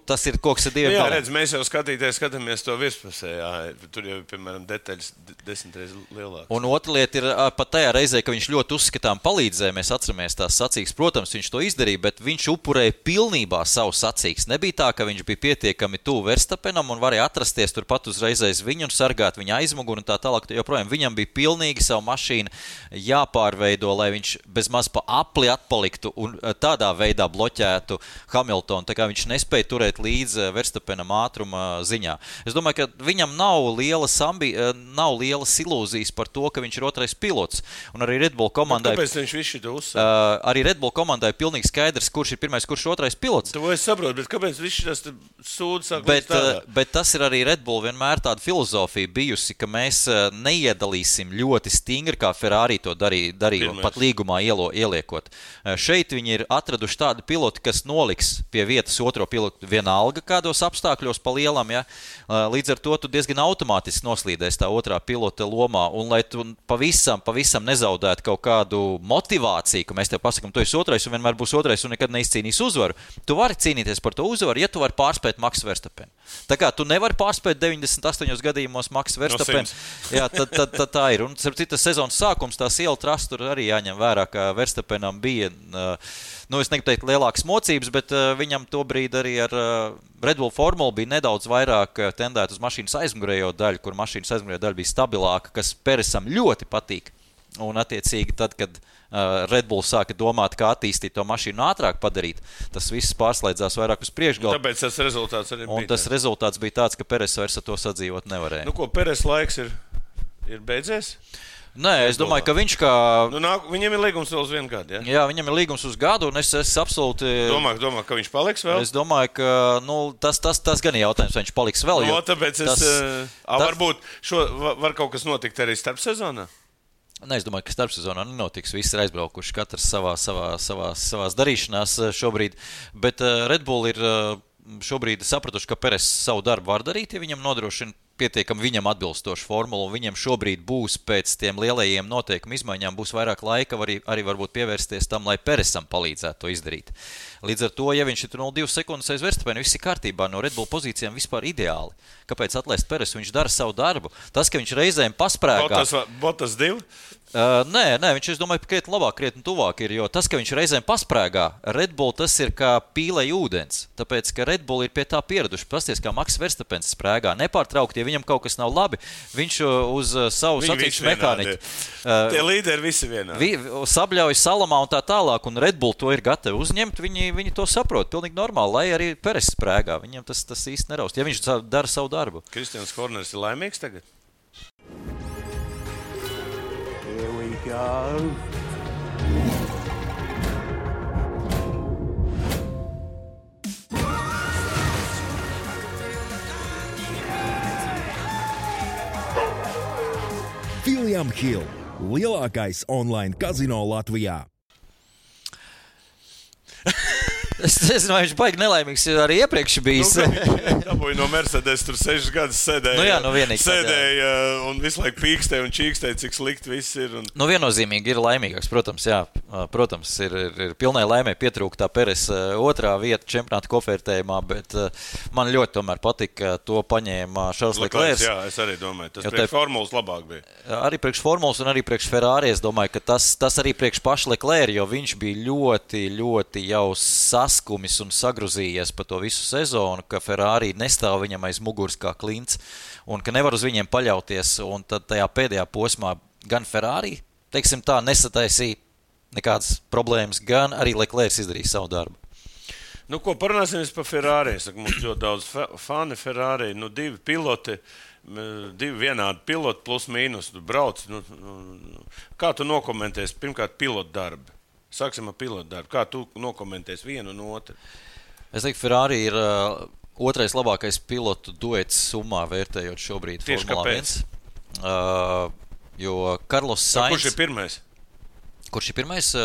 tas ir koks ar diviem galiem. Jā, redz, mēs jau skatāmies to virspusē, tur jau, piemēram, detaļas 10 reizes lielākas. Un otra lieta ir pat tajā reizē, ka viņš ļoti uzskatām palīdzēja, mēs atceramies tās sacīkstes. Protams, viņš to izdarīja, bet viņš upurēja pilnībā savu sacīkstes. Nebija tā, ka viņš bija pietiekami tuvu Verstapenam un varēja atrasties turpat uzreiz aiz viņu un sargāt viņa aizmuguru un tā tālāk. Joprojām viņam bija pilnīgi savu mašīnu jāpārveido, lai viņš bezmaz pa apli atpaliktu un tādā veidā bloķētu Hamiltonu. Tā kā viņš nespēja turēt līdz Verstapenam ātruma ziņā. Es domāju, ka viņam nav lielas ilūzijas par to, ka viņš ir otrais pilots. Un arī Red Bull komandai... Kāpēc viņš visu to uzsver? Arī Red Bull komandai ir pilnīgi skaidrs, kurš ir pirmais, kurš ir otrais pilots. To es saprotu, bet kāpēc viss tas sūds sāk bet tas ir arī Red Bull vienmēr tāda filozofija bijusi, ka mēs neiedalīsim ļoti stingri, kā Ferrari to darīja un pat līgumā ieliekot. Šeit viņi ir atraduši tādu pilotu, kas noliks pie vietas otro pilotu vienalga kādos apstākļos pa lielam, ja? Līdz ar to tu diezgan automātiski noslīdēs tā otrā pilota lomā, un lai tu pavisam nezaudētu kaut kādu motivāciju, ka mēs tev pasakam, tu esi otrais un vienmēr būs otrais un nekad neizcīnīs uzvaru, tu vari cīnīties par to uzvaru, ja tu vari pārspēt Maksu Verstapenu. Tā kā tu nevari pārspēt 98 gadījumos Maksu Verstapenu, jā, tad tā ir. Un citas sezonas sākums, tās iela trasa tur arī jāņem vērā, ka Verstapenam bija, es negribu teikt lielākas mocības, bet viņam tobrīd arī ar Red Bull formulu bija nedaudz vairāk tendēt uz mašīnas aizmugurējo daļu, kur mašīnas aizmugurējo daļa bija stabilāka, kas Peresam ļoti patīk. Un attiecīgi tad, kad Red Bull sāka domāt, kā attīstīt to mašīnu ātrāk padarīt, tas viss pārslēdzās vairāk uz priekšgalu. Tāpēc tas rezultāts arī bija. Un tas rezultāts bija tāds, ka Peres vairs ar to sadzīvot nevarēja. Ko, Peres laiks ir beidzies? Nē, es domāju, ka viņš kā... Viņam ir līgums vēl uz 1 gadu, ja? Jā, viņam ir līgums uz gadu, un es absolūti... Domā, ka viņš paliks vēl? Es domāju, ka tas gan ir jautājums, vai viņš paliks vēl. Tāpēc varbūt var kaut kas notikt arī starp sezonā? Nē, es domāju, ka starpsezonā nenotiks. Visi ir aizbraukuši, katrs savās darīšanās šobrīd. Bet Red Bull ir šobrīd sapratuši, ka Peres savu darbu var darīt, ja viņam nodrošina pietiekami viņam atbilstošu formulu, un viņam šobrīd būs pēc tiem lielajiem noteikumu izmaiņām būs vairāk laika arī varbūt pievērsties tam, lai Peresam palīdzētu to izdarīt. Līdz ar to, ja viņš ir 0,2 sekundes aiz Verstapenu, viss ir kārtībā, no Red Bull pozīcijām vispār ideāli. Kāpēc atlaist Peresu? Viņš dara savu darbu. Tas, ka viņš reizēm pasprēgā... Bottas 2? Nē, viņš, es domāju, krietni labāk, krietni tuvāk ir, jo tas, ka viņš reizēm pasprēgā, Red Bull tas ir kā pīlei ūdens, tāpēc, ka Red Bull ir pie tā pieraduši. Pasties, kā Maks Verstapens sprēgā, nepārtraukti, ja viņam kaut kas nav labi, viņš uz savu sacīkšu mehāniku. Tie līderi visi vienādi. Sabļauj salamā un tā tālāk, un Red Bull to ir gatavi uzņemt, viņi to saprot, pilnīgi normāli, lai arī Peres sprēgā, viņam tas īsti neraust, ja viņš dara savu darbu. Kristians Horners ir laimīgs tagad? Here we go. William Hill - lielākais online kazino Latvijā. Es nezinu, vai viņš baigi nelaimīgs, jo arī iepriekš bijis. Dabūja no Mercedes, tur 6 gadus sēdēja. Sēdēja un visu laiku pīkstēja un čīkstēja, cik slikti viss ir. Viennozīmīgi ir laimīgāks, protams, jā. Protams, ir pilnai laimē pietrūkt tā Peres otrā vieta čempionāta kopvērtējumā, bet man ļoti tomēr patika, to paņēma Charles Leclerc. Jā, es arī domāju, tas priekš formulas labāk bija. Arī priekš formulas un arī priekš Ferrari, es domāju, ka tas arī priekš paša Leclerc, jo viņš bija ļoti jau saskumis un sagruzījies pa to visu sezonu, ka Ferrari nestāv viņam aiz muguras kā klints un ka nevar uz viņiem paļauties. Un tad tajā pēdējā posmā gan Ferrari, teiksim tā, nesataisīja nekādas problēmas, gan arī Leclerc izdarīja savu darbu. Parunāsimies par Ferrari. Mums ļoti daudz fani Ferrari, 2 piloti, 2 vienādi piloti plus mīnus, tu brauc. Kā tu nokomentēsi pirmkārt pilotu darbu? Sāksim ar pilotu darbu. Kā tu nokomentēsi vienu un otru? Es teiktu, Ferrari ir otrais labākais pilotu duets summā vērtējot šobrīd Tieši Formulā 1. Jo Carlos Sainz... Kurš ir pirmais? Kurš ir pirmais?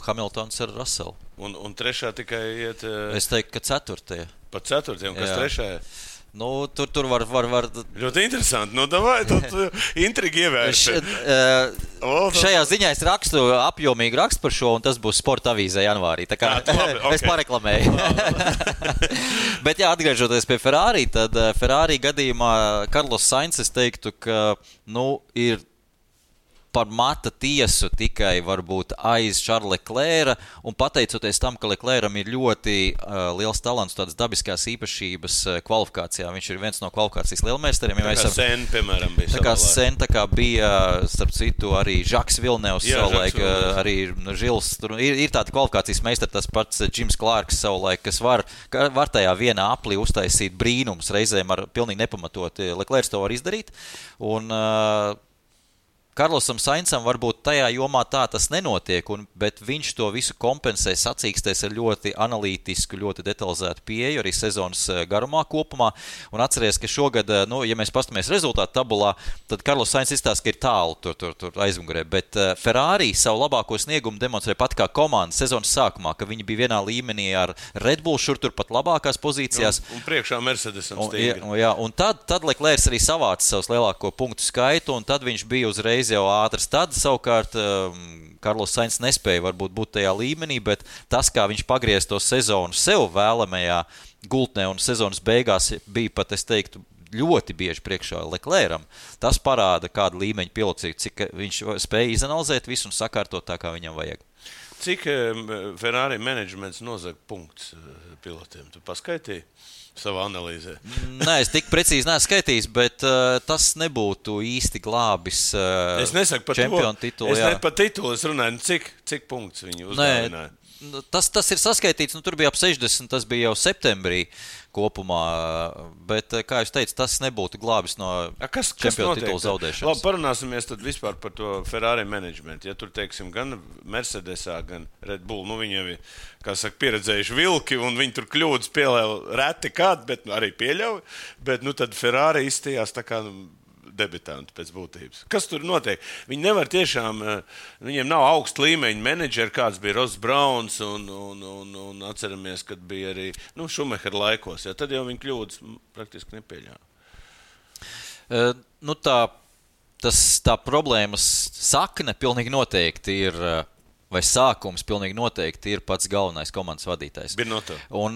Hamiltons ar Russellu. Un trešā tikai iet... Es teiktu, ka ceturtie. Pa ceturtiem, kas trešā? Nu, tur var... Ļoti interesanti. Nu, davai, tad intrigi ievērst. Šajā ziņā es rakstu apjomīgu rakstu par šo, un tas būs Sporta avīzē janvārī. Tā kā es pareklamēju. Bet jā, atgriežoties pie Ferrari, tad Ferrari gadījumā Carlos Sainz, es teiktu, ka, ir par mata tiesu tikai varbūt aiz Charlesa Leclerca, un pateicoties tam, ka Leclercam ir ļoti liels talants, tādas dabiskās īpašības kvalifikācijā. Viņš ir viens no kvalifikācijas lielmeistariem. Tā kā Sen, piemēram, bija savā laikā. Sen, tā kā bija, starp citu, arī Žaks Vilnevs savulaik, arī Žils. Tur ir tāda kvalifikācijas meistari, tas pats Jims Clarks savulaik, kas var tajā vienā aplī uztaisīt brīnums, reizēm ar pilnīgi nepamatot. Leclercs to var izdarīt, un Carlosam Sainzam varbūt tajā jomā tā tas nenotiek, bet viņš to visu kompensē, sacīkstēs ar ļoti analītisku, ļoti detalizētu pieeju arī sezonas garumā kopumā. Un atceries, ka šogad, ja mēs pastamies rezultātu tabulā, tad Carlos Sainz izstāsta, ka ir tālu tur aizmugurē, bet Ferrari savu labāko sniegumu demonstrē pat kā komanda sezonas sākumā, ka viņi bija vienā līmenī ar Red Bull, šur tur pat labākās pozīcijās. Un priekšā Mercedesam stingri. Un tad Leclercs arī savāca savus lielāko punktu skaitu, un tad viņš bija uzreiz jau ātrs. Tad savukārt Carlos Sainz nespēja varbūt būt tajā līmenī, bet tas, kā viņš pagriez to sezonu sev vēlamajā gultnē un sezonas beigās bija pat, es teiktu, ļoti bieži priekšā Leclercam, tas parāda kādu līmeņu pilocību, cik viņš spēja izanalizēt visu un sakārtot tā, kā viņam vajag. Cik Ferrari menedžments nozag punktus pilotiem? Tu paskaitīji savā analīzē? Nē, es tik precīzi neesmu skaitījis, bet tas nebūtu īsti glābis čempionu titulu. Es ne par titulu, es runāju, cik punktus viņi uzdāvināja? Tas ir saskaitīts, tur bija ap 60, tas bija jau septembrī kopumā, bet, kā jūs teicu, tas nebūtu glābis no čempionu titulu zaudēšanas. Labi, parunāsimies tad vispār par to Ferrari menedžmentu. Ja tur, teiksim, gan Mercedesā, gan Red Bull, viņi jau ir, kā saka, pieredzējuši vilki, un viņi tur kļūdas pieļauj reti kādu, bet arī pieļauj, bet tad Ferrari izstījās tā kā debitanti pēc būtības. Kas tur notiek? Viņi nevar tiešām, viņiem nav augsta līmeņa menedžeri, kāds bija Ross Browns un atceramies, kad bija arī Schumacher laikos. Ja, tad jau viņi kļūdas praktiski nepieļāva. Tā problēmas sakne pilnīgi noteikti ir, vai sākums pilnīgi noteikti ir pats galvenais komandas vadītājs. Binotto. Un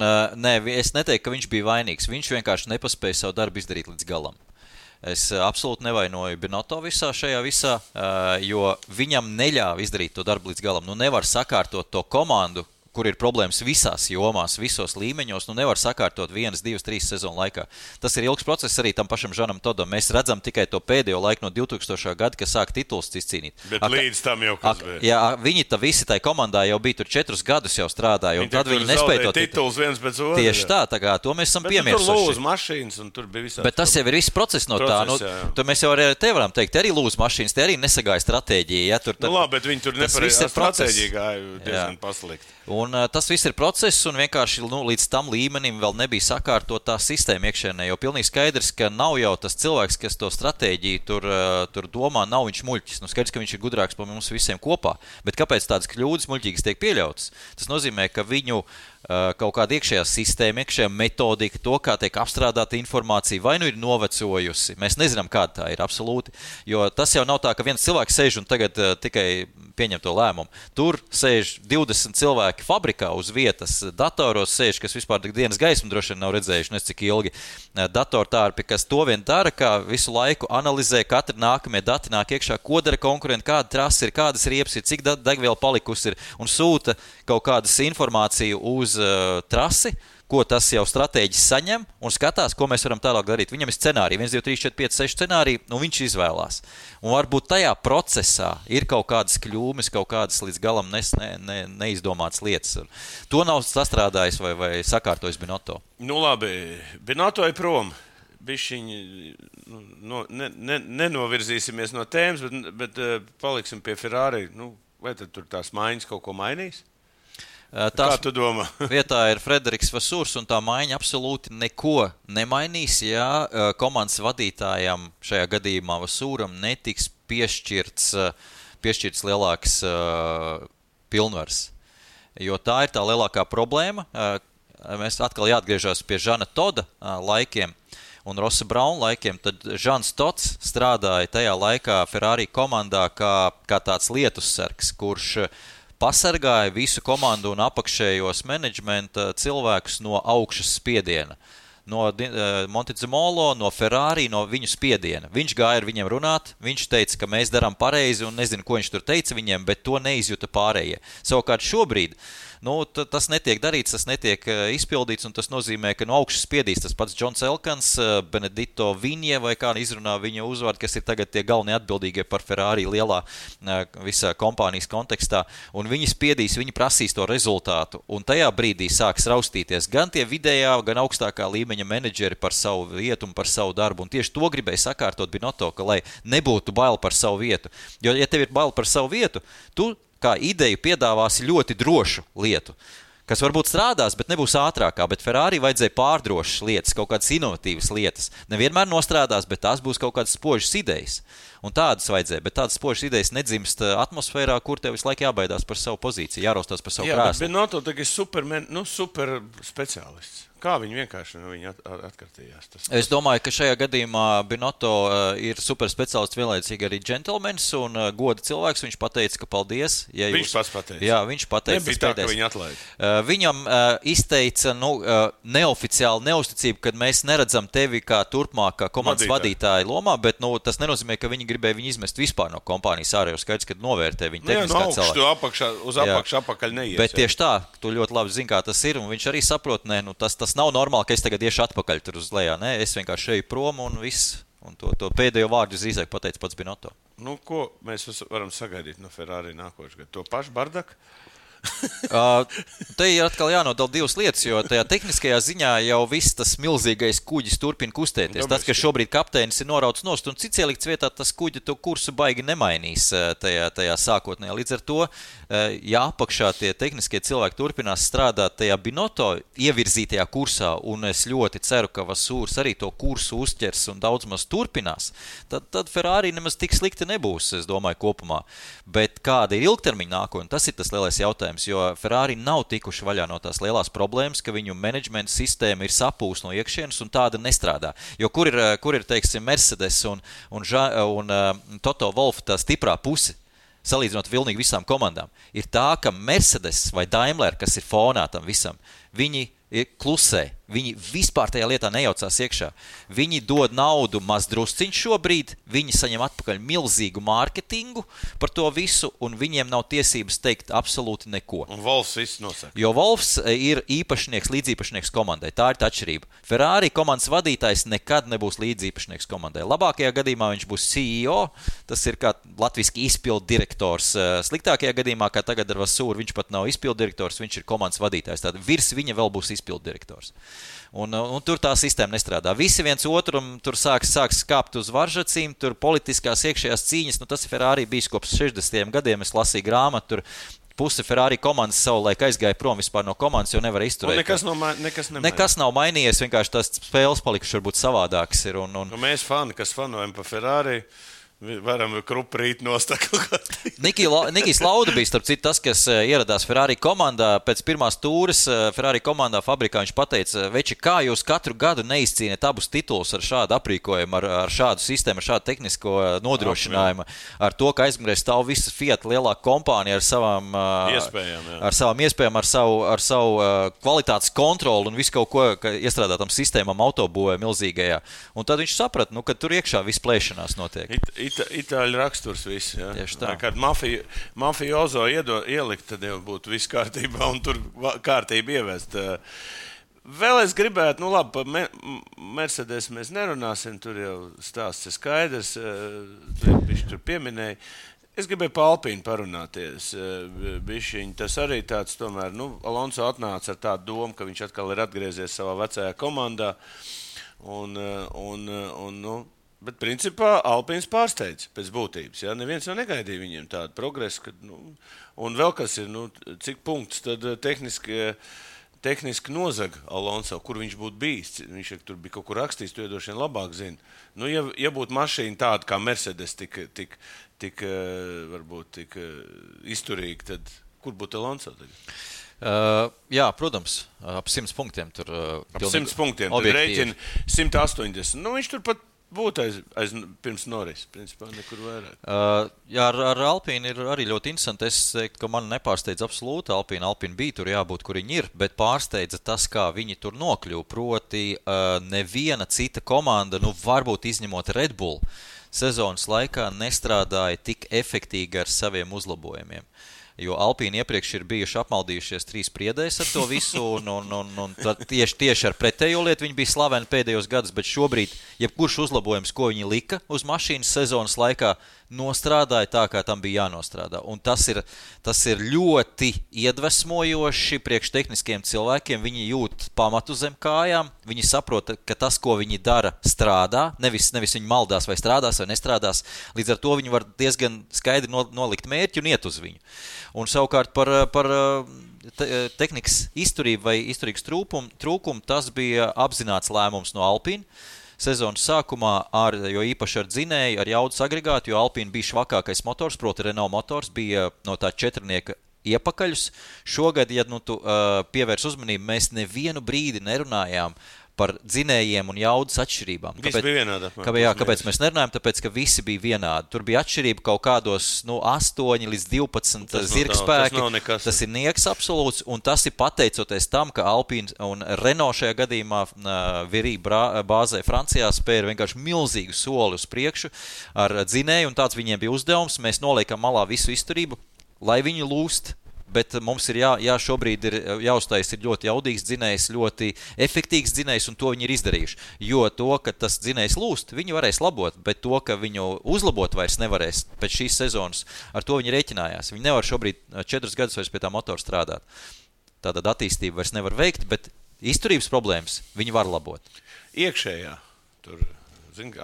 es neteiktu, ka viņš bija vainīgs. Viņš vienkārši nepaspēja savu darbu izdarīt līdz galam. Es absolūti nevainoju Binotto šajā visā, jo viņam neļāva izdarīt to darbu līdz galam. Nevar sakārtot to komandu, kur ir problēmas visās jomās, visos līmeņos, nevar sakārtot 1, 2, 3 sezonu laikā. Tas ir ilgs process arī tam pašam Žanam Todam. Mēs redzam tikai to pēdējo laiku no 2000. gada, kad sāk tituls izcīnīt. Bet līdz tam jau kas bija. Jā, viņi visi tai komandā jau bija tur 4 gadus jau strādāja, un tad viņi nespēja to tituls viens pēc otra. Tieši tā kā to mēs esam piemirsuši. Bet tur lūz mašīnas, un tur bija visādi. Bet tas jau ir viss process no tā. Tur mēs jau te varam teikt, arī lūz mašīnas, te arī nesagāja stratēģija. Ja, labi, bet viņi tur nepareizā stratēģija gāja diezgan paslikt. Un tas viss ir process, un vienkārši līdz tam līmenim vēl nebija sakārtot tā sistēma iekšēnē, jo pilnīgi skaidrs, ka nav jau tas cilvēks, kas to stratēģiju tur domā, nav viņš muļķis. Skaidrs, ka viņš ir gudrāks par mums visiem kopā, bet kāpēc tādas kļūdas muļķīgas tiek pieļautas? Tas nozīmē, ka viņu kaut kāda iekšējā sistēma, iekšējā metodika, to, kā tiek apstrādāta informācija, vai ir novecojusi. Mēs nezinām, kāda tā ir absolūti, jo tas jau nav tā, ka viens cilvēks sēž un tagad tikai pieņem to lēmumu. Tur sēž 20 cilvēki fabrikā uz vietas, datoros sēž, kas vispār dienas gaismu droši vien nav redzējuši, nes cik ilgi. Datortārpi, kas to vien dara, kā visu laiku analizē, katri nākamie dati nāk iekšā, ko dara konkurenti, kāda trasa ir, kādas riepas ir, cik degviela palikusi ir, un sūta kaut kādas informāciju uz trasi, ko tas jau stratēģis saņem un skatās, ko mēs varam tālāk darīt. Viņam ir scenāriji, 1, 2, 3, 4, 5, 6 scenāriji, un viņš izvēlās. Un varbūt tajā procesā ir kaut kādas kļūmes, kaut kādas līdz galam neizdomātas lietas. To nav sastrādājis vai sakārtojis Binotto. Labi, Binotto ir prom. Bišķiņi, nenovirzīsimies no tēmas, bet paliksim pie Ferrari. Vai tad tur tās maiņas kaut ko mainīs? Kā tu domā? Vietā ir Frederiks Vasūrs, un tā maiņa absolūti neko nemainīs, ja komandas vadītājam šajā gadījumā Vasūram netiks piešķirts lielāks pilnvars. jo tā ir tā lielākā problēma. Mēs atkal jāatgriežas pie Žana Toda laikiem un Rossa Brauna laikiem. Tad Žans Tots strādāja tajā laikā Ferrari komandā kā tāds lietussargs, kurš pasargāja visu komandu un apakšējos menedžmenta cilvēkus no augšas spiediena. No Montezemolo, no Ferrari, no viņu spiediena. Viņš gāja ar viņiem runāt, viņš teica, ka mēs darām pareizi, un nezinu, ko viņš tur teica viņiem, bet to neizjuta pārējie. Savukārt šobrīd tas netiek darīts, tas netiek izpildīts, un tas nozīmē, ka no augšas spiedīs tas pats Džons Elkans, Benedito Vinje, vai kā izrunā viņa uzvārdu, kas ir tagad tie galvenie atbildīgie par Ferrari lielā visā kompānijas kontekstā, un viņi spiedīs, viņi prasīs to rezultātu, un tajā brīdī sāks raustīties gan tie vidējā, gan augstākā līmeņa menedžeri par savu vietu un par savu darbu, un tieši to gribēja sakārtot Binotto, ka lai nebūtu bail par savu vietu, jo ja tev ir bail par savu vietu, tu kā ideju piedāvāsi ļoti drošu lietu, kas varbūt strādās, bet nebūs ātrākā, bet Ferrari vajadzēja pārdrošas lietas, kaut kādas inovatīvas lietas. Nevienmēr nostrādās, bet tās būs kaut kādas spožas idejas. Un tādas vajadzēja, bet tādas spožas idejas nedzimst atmosfērā, kur tev visu laiku jābaidās par savu pozīciju, jāraustās par savu krēslu. Jā, bet Binotto tagad ir super speciālists. Kā viņi vienkārši atkartījās? Es domāju, ka šajā gadījumā Binotto ir super speciālists, vienlaicīgi arī džentelmenis un goda cilvēks. Viņš pateica, ka paldies. Ja viņš pats pateica. Jā, viņš pateica. Nebija tā, ka viņi atlaida. Viņam izteica neoficiāli neusticību, kad mēs neredzam tevi kā turpmāk kā komandas vadītāja lomā, bet tas nenozīmē, ka viņi gribēja viņu izmest vispār no kompānijas ārā, jo skaidrs, ka novērtē viņu tehniskā cilvēka. Uz apakšu apakaļ neies. Bet tieši tā, tu ļoti labi zini, kā tas ir, un viņš arī saprot, tas nav normāli, ka es tagad iešu atpakaļ tur uz lejā. Nē, es vienkārši eju prom un viss. Un to pēdējo vārdu drīzāk pateica pats Binotto. Ko mēs varam sagaidīt no Ferrari nākošais gads? To pašu bardaku? Te ir atkal jānodala divas lietas, jo tajā tehniskajā ziņā jau viss tas milzīgais kuģis turpina kustēties. Tas, ka šobrīd kapteinis ir norauts nost un cits ielikts vietā, tas kuģi to kursu baigi nemainīs tajā sākotnējā. Līdz ar to, ja apakšā tie tehniskie cilvēki turpinās strādāt tajā Binotto ievirzītajā kursā, un es ļoti ceru, ka Vasūrs arī to kursu uzķers un daudz maz turpinās, tad Ferrari nemaz tik slikti nebūs, es domāju, kopumā. Bet kāda ir ilgtermiņa nākotne, tas ir tas lielais jautājums. Jo Ferrari nav tikuši vaļā no tās lielās problēmas, ka viņu menedžmenta sistēma ir sapūs no iekšienes un tāda nestrādā. Jo kur ir teiksim, Mercedes un Toto Wolff tā stiprā puse, salīdzinot pilnīgi visām komandām, ir tā, ka Mercedes vai Daimler, kas ir fonā tam visam, viņi klusē. Viņi vispār tajā lietā nejaucās iekšā. Viņi dod naudu maz drusciņš šobrīd, viņi saņem atpakaļ milzīgu mārketingu par to visu, un viņiem nav tiesības teikt absolūti neko. Un Wolffs viss nosaka. Jo Wolffs ir īpašnieks, līdzīpašnieks komandai. Tā ir tā atšķirība. Ferrari komandas vadītājs nekad nebūs līdzīpašnieks komandai. Labākajā gadījumā viņš būs CEO, tas ir kā latviski izpildu direktors. Sliktākajā gadījumā, kā tagad ar Vasūru, viņš pat nav izpildu direktors, viņš ir komandas vadītājs. Tātad virs viņa vēl būs izpildu direktors. Un tur tā sistēma nestrādā. Visi viens otram tur sāks skāpt uz varžacīm, tur politiskās iekšējās cīņas, tas ir Ferrari bijis kopš 60. gadiem, es lasīju grāmatu, tur puse Ferrari komandas savulaik aizgāja prom vispār no komandas, jo nevar izturēt. Nekas nav mainījies, vienkārši tās spēles palikušas varbūt savādākas ir. Mēs kas fanojam pa Ferrari, varam kruprīt nostakot. Nikijs Lauda bija, starp citu, tas, kas ieradās Ferrari komandā. Pēc pirmās tūres Ferrari komandā fabrikā viņš pateica, veči, kā jūs katru gadu neizcīniet abus titulus ar šādu aprīkojumu, ar šādu sistēmu, ar šādu tehnisko nodrošinājumu, ar to, ka aizmugurē stāv visa Fiat lielā kompānija ar savām iespējām, ar savu kvalitātes kontroli un visu kaut ko iestrādātam sistēmām autobūvē milzīgajā. Un tad viņš saprata, ka tur iekšā viss plēšanās notiek. Itāļu raksturs viss, jā. Tieši tā. Kad mafiozo ielikt, tad jau būtu viss kārtībā un tur kārtība ievest. Vēl es gribētu, labi, par Mercedes mēs nerunāsim, tur jau stāsts ir skaidrs, viņš tur pieminēja. Es gribēju par Alpīnu parunāties. Bišķiņ, tas arī tāds, tomēr, Alonso atnāca ar tādu domu, ka viņš atkal ir atgriezies savā vecajā komandā. Bet principā Alpīns pārsteidz pēc būtības. Ja? Neviens jau negaidīja viņiem tādu progresu. Un vēl kas ir, cik punkts tad tehniski nozaga Alonso, kur viņš būtu bijis. Viņš tur bija kaut kur rakstījis, to iedošana labāk zina. Ja būtu mašīna tāda kā Mercedes tik izturīga, tad kur būtu Alonso tagad? Jā, protams, ap 100 punktiem tur. Ap 100 punktiem, tad rēķina 180. Nu, viņš tur pat būtu aiz pirms Norris, principā nekur vairāk. Jā, ar Alpīnu ir arī ļoti interesanti. Es teiktu, ka man nepārsteidz absolūti Alpīna. Alpīna bija tur jābūt, kur viņi ir, bet pārsteidza tas, kā viņi tur nokļuva. Proti, neviena cita komanda, varbūt izņemot Red Bull, sezonas laikā nestrādāja tik efektīgi ar saviem uzlabojumiem. Jo Alpīni iepriekš ir bijuši apmaldījušies 3 priedēs ar to visu, un tieši ar pretējo lietu viņi bija slaveni pēdējos gadus, bet šobrīd, jebkurš uzlabojums, ko viņi lika uz mašīnas sezonas laikā, nostrādāja tā, kā tam bija jānostrādā. Un tas ir ļoti iedvesmojoši priekš tehniskiem cilvēkiem. Viņi jūt pamatu zem kājām, viņi saprot, ka tas, ko viņi dara, strādā, nevis viņi maldās vai strādās vai nestrādās. Līdz ar to viņi var diezgan skaidri nolikt mērķi un iet uz viņu. Un savukārt par tehnikas izturību vai izturīgas trūkumu, tas bija apzināts lēmums no Alpīna. Sezonas sākumā, jo īpaši ar dzinēju, ar jaudas agregātu, jo Alpīna bija švakākais motors, proti Renault motors, bija no tā 4-nieka iepakaļus. Šogad, ja tu pievērs uzmanību, mēs nevienu brīdi nerunājām par dzinējiem un jaudas atšķirībām. Visi bija vienādi. Kāpēc mēs nerunājam? Tāpēc, ka visi bija vienādi. Tur bija atšķirība kaut kādos 8 līdz 12 zirgspēki. Tas ir nieks absolūts, un tas ir pateicoties tam, ka Alpine un Renault šajā gadījumā Virī bāzē Francijā spēja vienkārši milzīgu soli uz priekšu ar dzinēju, un tāds viņiem bija uzdevums. Mēs noliekam malā visu izturību, lai viņi lūst. Bet mums ir šobrīd ir jāuztais ir ļoti jaudīgs dzinējs, ļoti efektīgs dzinējs, un to viņi ir izdarījuši. Jo to, ka tas dzinējs lūst, viņi varēs labot, bet to, ka viņu uzlabot vairs nevarēs pēc šīs sezonas, ar to viņi rēķinājās. Viņi nevar šobrīd 4 gadus vairs pie tā motora strādāt. Tātad attīstību vairs nevar veikt, bet izturības problēmas viņi var labot. Iekšējā, tur,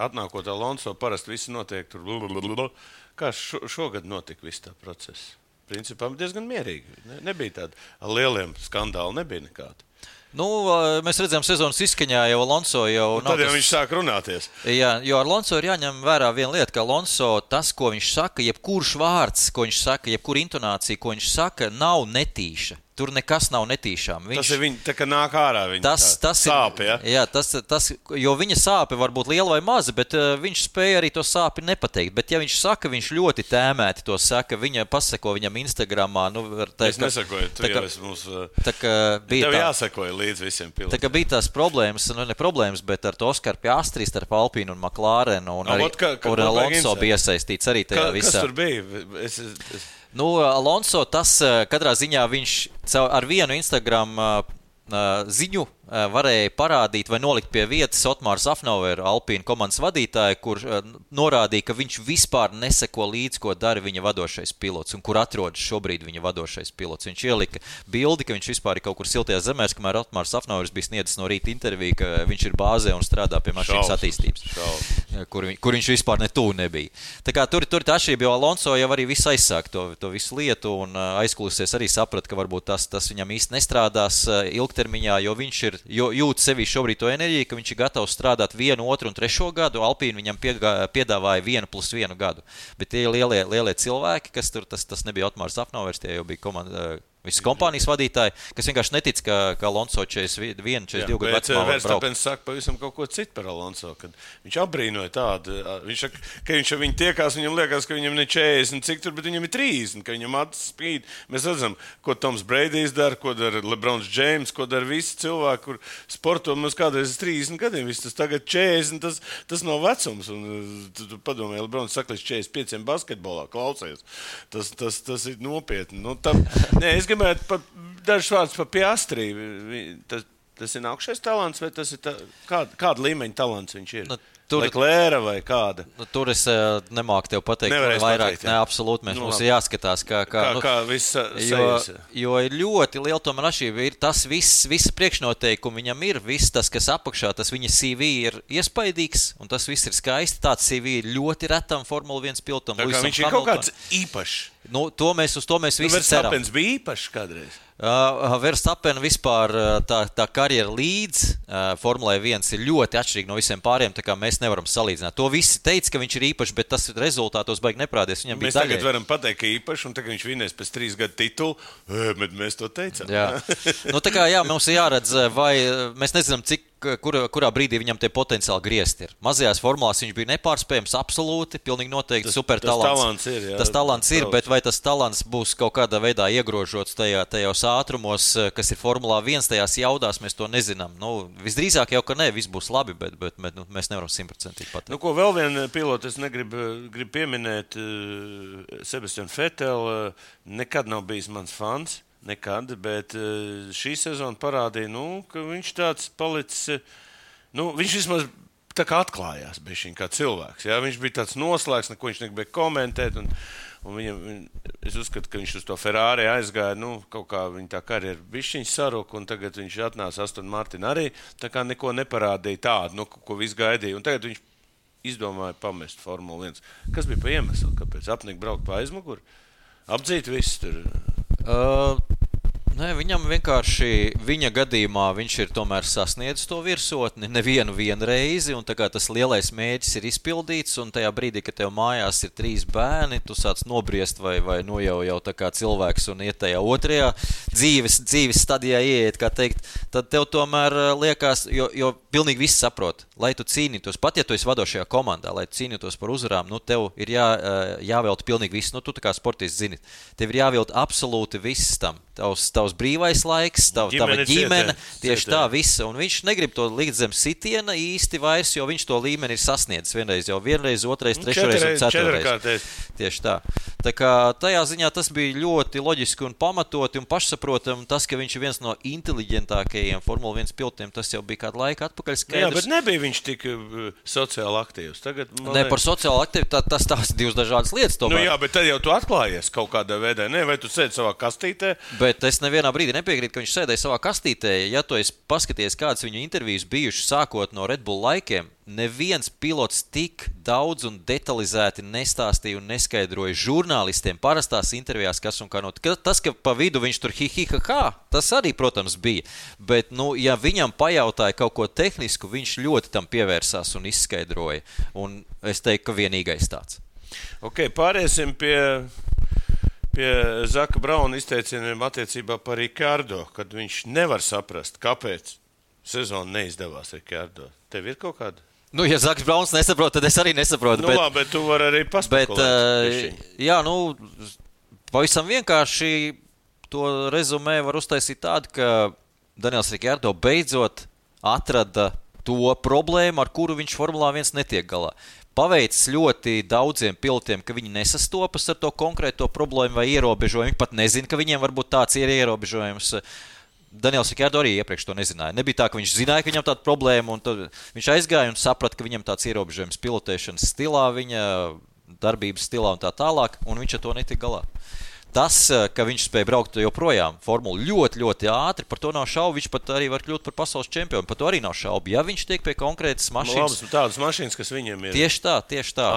atnākot Alonso, parasti visi notiek tur. Kā šogad notika viss tā process? Principā diezgan mierīgi. Nebija tāda lieliem skandāli, nebija nekāda. Mēs redzējām sezonas izskaņā jau Alonso jau... Tad jau viņš sāk runāties. Jā, jo Alonso ir jāņem vērā viena lieta, ka Alonso tas, ko viņš saka, jebkurš vārds, ko viņš saka, jebkura intonācija, ko viņš saka, nav netīša. Tur nekas nav netīšām. Tas ir viņa, tā kā nāk ārā viņa sāpe, ja? Jā, jo viņa sāpe var būt liela vai maza, bet viņš spēja arī to sāpi nepateikt. Bet ja viņš saka, viņš ļoti tēmēti to saka, viņa paseko viņam Instagramā. Es nesakoju, tu jau esi mums... Tev jāsakoja līdz visiem pilotiem. Tā kā bija tās problēmas, ne problēmas, bet ar to Oskaru Piastri starp Alpīnu un McLarenu un arī Alonso bija iesaistīts arī tajā visā. Kas tur bija? Alonso, tas katrā ziņā viņš ar vienu Instagram ziņu varēja parādīt vai nolikt pie vietas Otmāru Safnoveru, Alpīna komandas vadītāju, kur norādīja, ka viņš vispār neseko līdz, ko dara viņa vadošais pilots un kur atrodas šobrīd viņa vadošais pilots. Viņš ielika bildi, ka viņš vispār ir kaut kur siltajās zemēs, kamēr Otmārs Safnovers bija sniedzis no rīta interviju, ka viņš ir bāzē un strādā pie mašīnas attīstības, kur viņš vispār netū nebija. Tā kā tur tā atšķirība, jo Alonso jau arī visu aizsāk to visu lietu un aizkulisēs arī saprat, ka varbūt tas viņam īsti nestrādās ilgtermiņā, jo viņš ir jūt sevi šobrīd to enerģiju, ka viņš ir gatavs strādāt 1, 2 un 3 gadu. Alpīna viņam piedāvāja 1+1 gadu. Bet tie lielie cilvēki, kas tur, tas nebija Otmārs Safnovers, tie jau bija komanda... Visas kompānijas vadītāji, kas vienkārši netic, ka Alonso 41, 42 gadu vecumā var braukt. Verstapens saka pavisam kaut ko citu par Alonso, kad viņš apbrīnoja tādu. Viņš saka, ka viņš ar viņu tiekās, viņam liekas, ka viņam ne 40 cik tur, bet viņam ir 30, ka viņam acis spīd. Mēs redzam, ko Toms Breidijs dara, ko dara LeBrons James, ko dara visi cilvēki, kur sporto mums kādreiz 30 gadiem. Viss tas tagad 40, tas nav vecums. Un tu padomāji, LeBrons saka līdz 45 basketbolā, klausies. Tas ir nopietni. Es gribētu dažus vārdus par Piastri. Tas ir nākušais talants, vai tas ir kāda līmeņa talants viņš ir? Leclerc vai kāda? Tur es nemāku tev pateikt vairāk. Nē, absolūti, mums ir jāskatās, kā viss sajas. Jo ir ļoti liela tomēr atšķirība. Ir tas visa priekšnoteikumi viņam ir, viss tas, kas apakšā, tas viņa CV ir iespaidīgs, un tas viss ir skaisti. Tāds CV ir ļoti retam Formula 1 pilotam. Tā kā viņš ir kaut kāds īpašs. Uz to mēs visi ceram. Verstapens bija īpašs kādreiz? Verstappen vispār tā karjera līdz Formulē 1 ir ļoti atšķirīgi no visiem pāriem, tā kā mēs nevaram salīdzināt. To visi teica, ka viņš ir īpašs, bet tas rezultātos baigi neprādies. Mēs tagad varam pateikt, ka īpašs, un tagad viņš vinēs pēc 3 gadu titulu, bet mēs to teicām. Jā. Tā kā mums ir jāredz, vai mēs nezinām, kurā brīdī viņam tie potenciāli griezti ir. Mazajās formulās viņš bija nepārspējams, absolūti, pilnīgi noteikti super talants. Tas talants ir, bet vai tas talants būs kaut kādā veidā iegrožots tajos ātrumos, kas ir Formulā 1, tajās jaudās, mēs to nezinām. Visdrīzāk jau, ka ne, viss būs labi, bet mēs nevaram 100% pateikt. Ko vēl vienu pilotu es gribu pieminēt, Sebastian Vettel nekad nav bijis mans fans. Nekad, bet šī sezona parādīja, ka viņš tāds palicis, viņš vismaz tā kā atklājās bišķiņ kā cilvēks. Jā? Viņš bija tāds noslēgs, neko viņš negribēja komentēt, un es uzskatu, ka viņš uz to Ferrari aizgāja, kaut kā viņa tā karjera bišķiņ saruka, un tagad viņš atnāca Aston Martin arī, tā kā neko neparādīja tādu, ko viss gaidīja, un tagad viņš izdomāja pamest Formulu 1. Kas bija pa iemeslu, kāpēc apnika braukt pa aizmuguri? Apdzīt visu tur... Nē, viņam vienkārši, viņa gadījumā viņš ir tomēr sasniedzis to virsotni nevienu reizi, un tā kā tas lielais mērķis ir izpildīts, un tajā brīdī, kad tev mājās ir 3 bērni, tu sāc nobriest vai jau tā kā cilvēks un iet tajā otrajā dzīves stadijā ieiet, kā teikt, tad tev tomēr liekas, jo pilnīgi viss saprot, lai tu cīnītos, pat ja tu esi vadošajā komandā, lai tu cīnītos par uzvarām, tev ir jāvelta pilnīgi viss, tu tā kā sportists zini, tev ir jāvelta absolūti viss tam, tavs brīvais laiks, tava ģimene, tieši tā visa, un viņš negrib to likt zem sitiena īsti vairs, jo viņš to līmeni ir sasniedzis vienreiz, otrais, trešreiz un ceturreiz. Tieši tā. Tā kā tajā ziņā tas bija ļoti loģiski un pamatoti un pašsaprotam, tas, ka viņš ir viens no inteliģentākajiem Formula 1 pilotiem, tas jau bija kādu laiku atpakaļ skaidrs. Jā, bet nebija viņš tik sociāli aktīvs. Tagad, par sociāli aktīvu, tas divas dažādas lietas tomēr. Jā, bet tad jau tu atklājies kaut kādā veidā, vai tu sēdi savā kastītē? Bet es nevienā brīdī nepiekrītu, ka viņš sēdēja savā kastītē. Ja tu esi paskaties, kādas viņu intervijas bijušas sākot no Red Bull laikiem, neviens pilots tik daudz un detalizēti nestāstīja un neskaidroja žurnālistiem parastās intervijās, kas un kā tas, ka pa vidu viņš tur tas arī, protams, bija. Bet, ja viņam pajautāja kaut ko tehnisku, viņš ļoti tam pievērsās un izskaidroja. Un es teiktu, ka vienīgais tāds. Ok, pāriesim pie Zaka Brauna izteicieniem attiecībā par Ricardo, kad viņš nevar saprast, kāpēc sezona neizdevās Ricardo. Tev ir kaut kāda? Ja Zaks Brauns nesaprot, tad es arī nesaprotu. Bet tu vari arī paspekulēt. Pavisam vienkārši to rezumē var uztaisīt tādu, ka Daniels Ricardo beidzot atrada to problēmu, ar kuru viņš Formulā 1 netiek galā. Paveicis ļoti daudziem pilotiem, ka viņi nesastopas ar to konkrēto problēmu vai ierobežojumu. Viņi pat nezina, ka viņiem varbūt tāds ir ierobežojums. Daniels Ricardo arī iepriekš to nezināja. Nebija tā, ka viņš zināja, ka viņam tāda problēma, un tad viņš aizgāja un saprata, ka viņam tāds ierobežojums pilotēšanas stilā, viņa darbības stilā un tā tālāk, un viņš ar to netika galā. Tas, ka viņš spēja braukt joprojām formulu ļoti, ļoti ātri, par to nav šaubu. Viņš pat arī var kļūt par pasaules čempionu. Par to arī nav šaubu. Ja viņš tiek pie konkrētas mašīnas. Tādas mašīnas, kas viņiem ir. Tieši tā.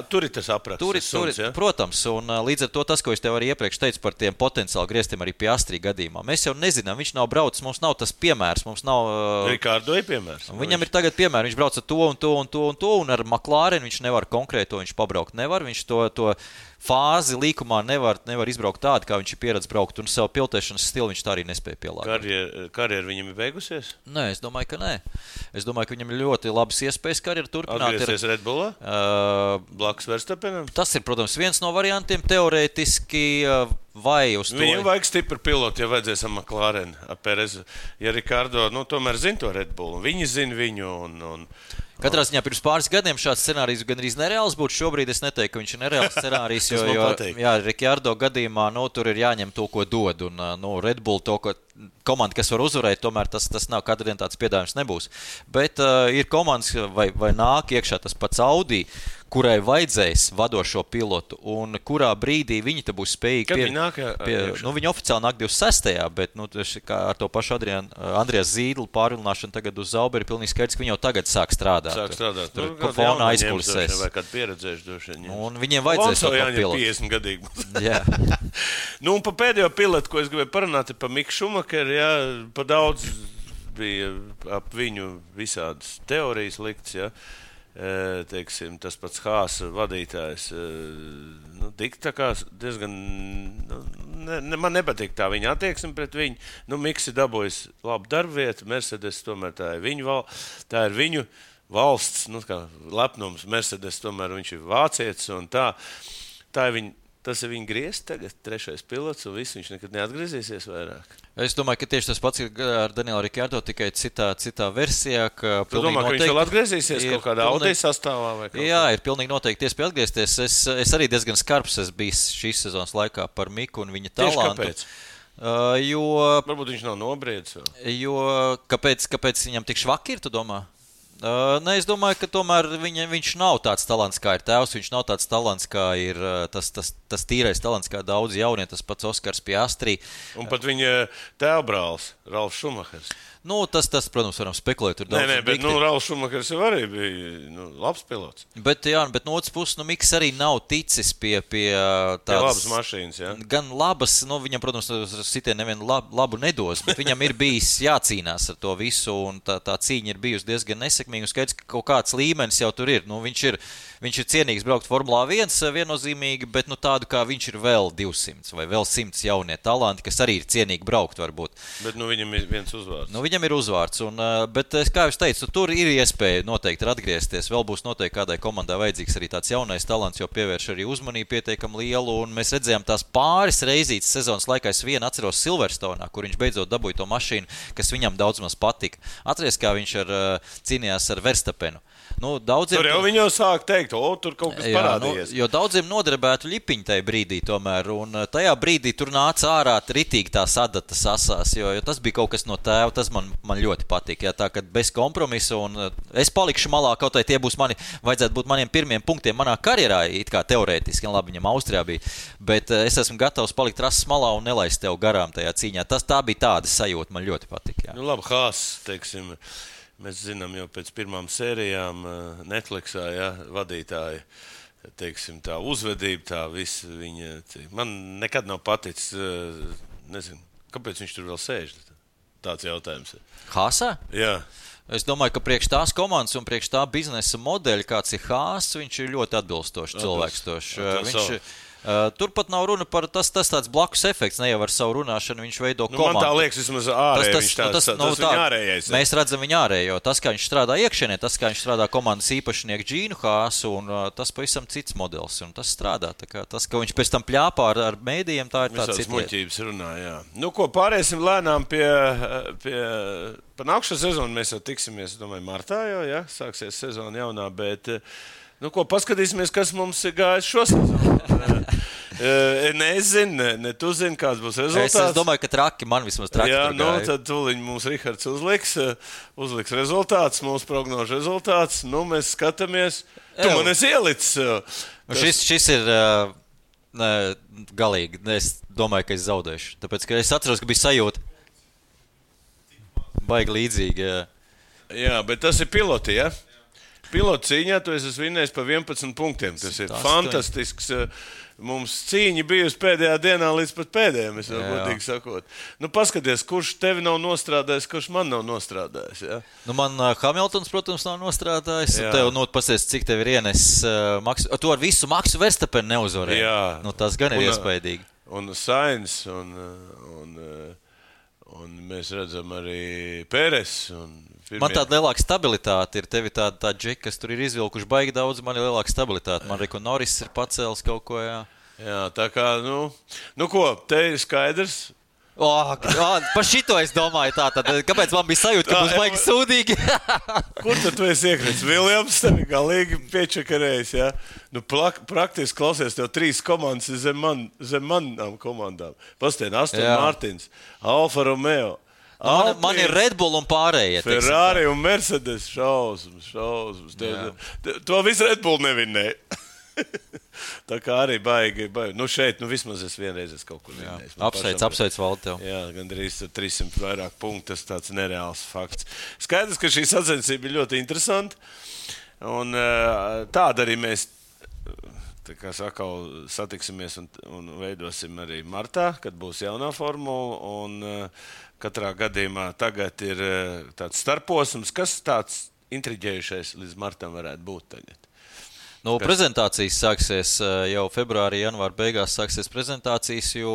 Tur ir tas apraksts. Ja? Protams, un līdz ar to tas, ko es tev arī iepriekš teicu par tiem potenciāli grieztiem arī Piastri gadījumā. Mēs jau nezinām, viņš nav braucis, mums nav tas piemērs, mums nav... Ricardo ir piemērs. Viņam ir tagad piemērs, viņš brauc ar to, un ar McLaren viņš nevar konkrēto, viņš pabraukt nevar, viņš to fāzi līkumā nevar izbraukt tādu, kā viņš ir pieredzējis braukt, un savu pilotēšanas stilu viņš tā arī nespēja pielāgot. Karjera viņam ir beigusies? Nē, es domāju, ka nē. Es domāju, ka viņam ir ļoti labas iespējas karjeru turpināt. Atgriezties Red Bullā? Blakus Verstappenam? Tas ir, protams, viens no variantiem teorētiski vai uz to. Viņam vajag stipru pilotu, ja vajadzēs ar McLaren, ar Perezu. Ja Ricardo, tomēr zina to Red Bullu, viņi zina viņu un Katrā ziņā pirms pāris gadiem šāds scenārijs gandrīz nereāls būtu. Šobrīd es neteiktu, ka viņš ir nereāls scenārijs, jo Ricardo gadījumā tur ir jāņem to, ko dod. Un Red Bull to, ko komanda, kas var uzvarēt, tomēr tas nav katru dienu tāds piedāvājums nebūs. Bet ir komandas vai nāk iekšā tas pats Audi, kurai vajadzēs vadošo pilotu, un kurā brīdī viņi te būs spējīgi Kad viņi nāk? Viņi oficiāli nāk 26. Bet kā ar to pašu Andrijas Zīdlu pārvilināšanu tagad uz Zauberi, pilnīgi skaidrs, ka viņi jau tagad sāk strādāt. Tur fona aizkulisēs. Vai kādu pieredzējuši droši vien. Un viņiem vajadzēs to pilotu. 50 gadīgi. Jā. Un pa pēdējo pilotu, ko es gribēju parunāt, ir pa Miku Šumakeru, pa daudz bija ap viņu visādas teorijas likts, ja. Teiksim, tas pats Hāsa vadītājs, tā kā diezgan, man nepatīk tā viņa attieksme pret viņu, Miks ir dabūjis labu darbvietu, Mercedes tomēr tā ir viņu valsts, kā lepnums, Mercedes tomēr viņš ir vācietis un tā ir viņa. Tas ir viņa griezts tagad, 3. pilots, un viss viņš nekad neatgriezīsies vairāk. Es domāju, ka tieši tas pats ir ar Danielu Rikardo, tikai citā versijā. Tu domā, ka viņš vēl atgriezīsies kaut kādā Audi sastāvā vai kaut kā? Jā, ir pilnīgi noteikti iespēja atgriezties. Es arī diezgan skarbs esmu bijis šīs sezonas laikā par Miku un viņa talantu. Tieši kāpēc? Varbūt viņš nav nobriedis vēl. Jo kāpēc viņam tik švaki ir, tu domā? Nē, es domāju, ka tomēr viņš nav tāds talants, kā ir tēvs. Viņš nav tāds talants, kā ir tas tīrais talants, kā daudz jaunie, tas pats Oskars Piastri. Un pat viņa tēvbrālis, Ralfs Šumahers. Tas, protams, varam spekulēt. Nē, bet Ralfs Šumahers jau arī bija labs pilots. Bet no otras puses, Miks arī nav ticis pie tādas labas mašīnas, jā. Gan labas, viņam, protams, sitien nevienu labu nedos, bet viņam ir bijis jācīnās ar to visu, un tā cīņa ir bijusi diezgan nesekmīga, un skaidrs, ka kaut kāds līmenis jau tur ir. Viņš ir cienīgs braukt Formulā 1 viennozīmīgi, bet tādu kā viņš ir vēl 200 vai vēl 100 jaunie talanti, kas arī ir cienīgi braukt varbūt. Bet viņam ir viens uzvārds. Viņam ir uzvārds, bet, kā jau teicu, tur ir iespēja noteikti atgriezties. Vēl būs noteikti kādai komandai vajadzīgs arī tāds jaunais talants, jo pievērš arī uzmanību pietiekami lielu, un mēs redzējām tās pāris reizītes sezonas laikā. Es vienu atceros Silverstone'ā, kur viņš beidzot dabūja to mašīnu, kas viņam daudz maz patika. Atceries, kā viņš cīnījās ar Verstapenu. Tur jau viņi jau sāk teikt, tur kaut kas parādījies. Jo daudziem noderbētu ļipiņi tajā brīdī tomēr, un tajā brīdī tur nāca ārā ritīgi tās adatas asās, jo tas bija kaut kas no tēva, tas man ļoti patīk, tā, kad bez kompromisa, un es palikšu malā, kaut vai tie būs vajadzētu būt maniem pirmiem punktiem manā karjerā, it kā teorētiski, labi, viņam Austrijā bija, bet es esmu gatavs palikt rases malā un nelaist tev garām tajā cīņā. Tā bija tāda sajūta, man ļoti patīk. Jā. Labi, Hāss, teiksim, mēs zinām jau pēc pirmām sērijām Netflixā, vadītāji, teiksim, tā uzvedība, tā visa viņa. Man nekad nav paticis, nezinu, kāpēc viņš tur vēl sēž. Tāds jautājums ir. Hāsā? Jā. Es domāju, ka priekš tās komandas un priekš tā biznesa modeļa, kāds ir Hāss, viņš ir ļoti atbilstošs cilvēks. Turpat nav runa par tas tāds blakus efekts, ne jau ar savu runāšanu viņš veido komandu. Man tā liekas, vismaz ārēji viņš tas viņa ārējais. Mēs redzam viņa ārējo, tas, kā viņš strādā iekšienē, tas, kā viņš strādā komandas īpašnieku Džīnu Hāsu, un tas pavisam cits modelis, un tas strādā. Tas, ka viņš pēc tam pļāpā ar mēdījiem, tā ir tāds cits. Muļķības runā, jā. Pāriesim lēnām par nākšo sezonu, mēs jau tiksimies, domāju, martā jau, jā, sāksies sezona jaunā, bet... paskatīsimies, kas mums ir gājis šo sezonu. Es zinu, ne tu zini, kāds būs rezultāts. Es domāju, ka traki, man vismaz traki. Jā, tad tūliņ mums Rihards uzliks rezultāts, mūsu prognožu rezultāts. Mēs skatāmies. Tu man esi ielicis. Šis ir galīgi. Es domāju, ka es zaudēšu. Tāpēc, ka es atceros, ka bija sajūta. Baigi līdzīgi. Jā, bet tas ir piloti, ja? Pilotu cīņā tu esi vinnējis pa 11 punktiem. Tas ir fantastisks. Mums cīņa bijusi pēdējā dienā līdz pat pēdējiem, es vēl godīgi sakot. Paskaties, kurš tevi nav nostrādājis, kurš man nav nostrādājis. Ja? Man Hamiltons, protams, nav nostrādājis. Tev pasies, cik tev ir ienes maksu. Tu ar visu Maksu Verstapenu neuzvarēji. Jā. Tas gan ir iespaidīgi. Un Sainz, un mēs redzam arī Pēres. Man tāda lielāka stabilitāte ir. Tev ir tāda džeka, kas tur ir izvilkuši baigi daudz, man ir lielāka stabilitāte. Man Reko Norris ir pacēlis kaut ko, jā. Jā, tā kā, ko, te ir skaidrs. Par šito es domāju tā, tad kāpēc man bija sajūta, ka būs baigi sūdīgi? Kur tad tu esi iekrits? Viljams tevi galīgi piečakarējis, jā? Praktiski klausies, tev 3 komandas zem manām komandām. Pastāvien, Aston Martins, Alfa Romeo. Man ir Red Bull un pārējie. Ferrari un Mercedes šausmas. To visu Red Bull nevinnēja. Tā kā arī baigi. Šeit, vismaz es vienreiz kaut kur vinnējis. Apsveic Valdi tev. Jā, gandrīz 300 vairāk punktu, tas tāds nereāls fakts. Skaidrs, ka šī sacensība ir ļoti interesanta. Un tāda arī mēs satiksimies un veidosim arī martā, kad būs jaunā formula. Un Katrā gadījumā tagad ir tāds starposms. Kas tāds intriģējušais līdz martam varētu būt tagad? Nu, prezentācijas sāksies jau februārī, janvāra beigās sāksies prezentācijas, jo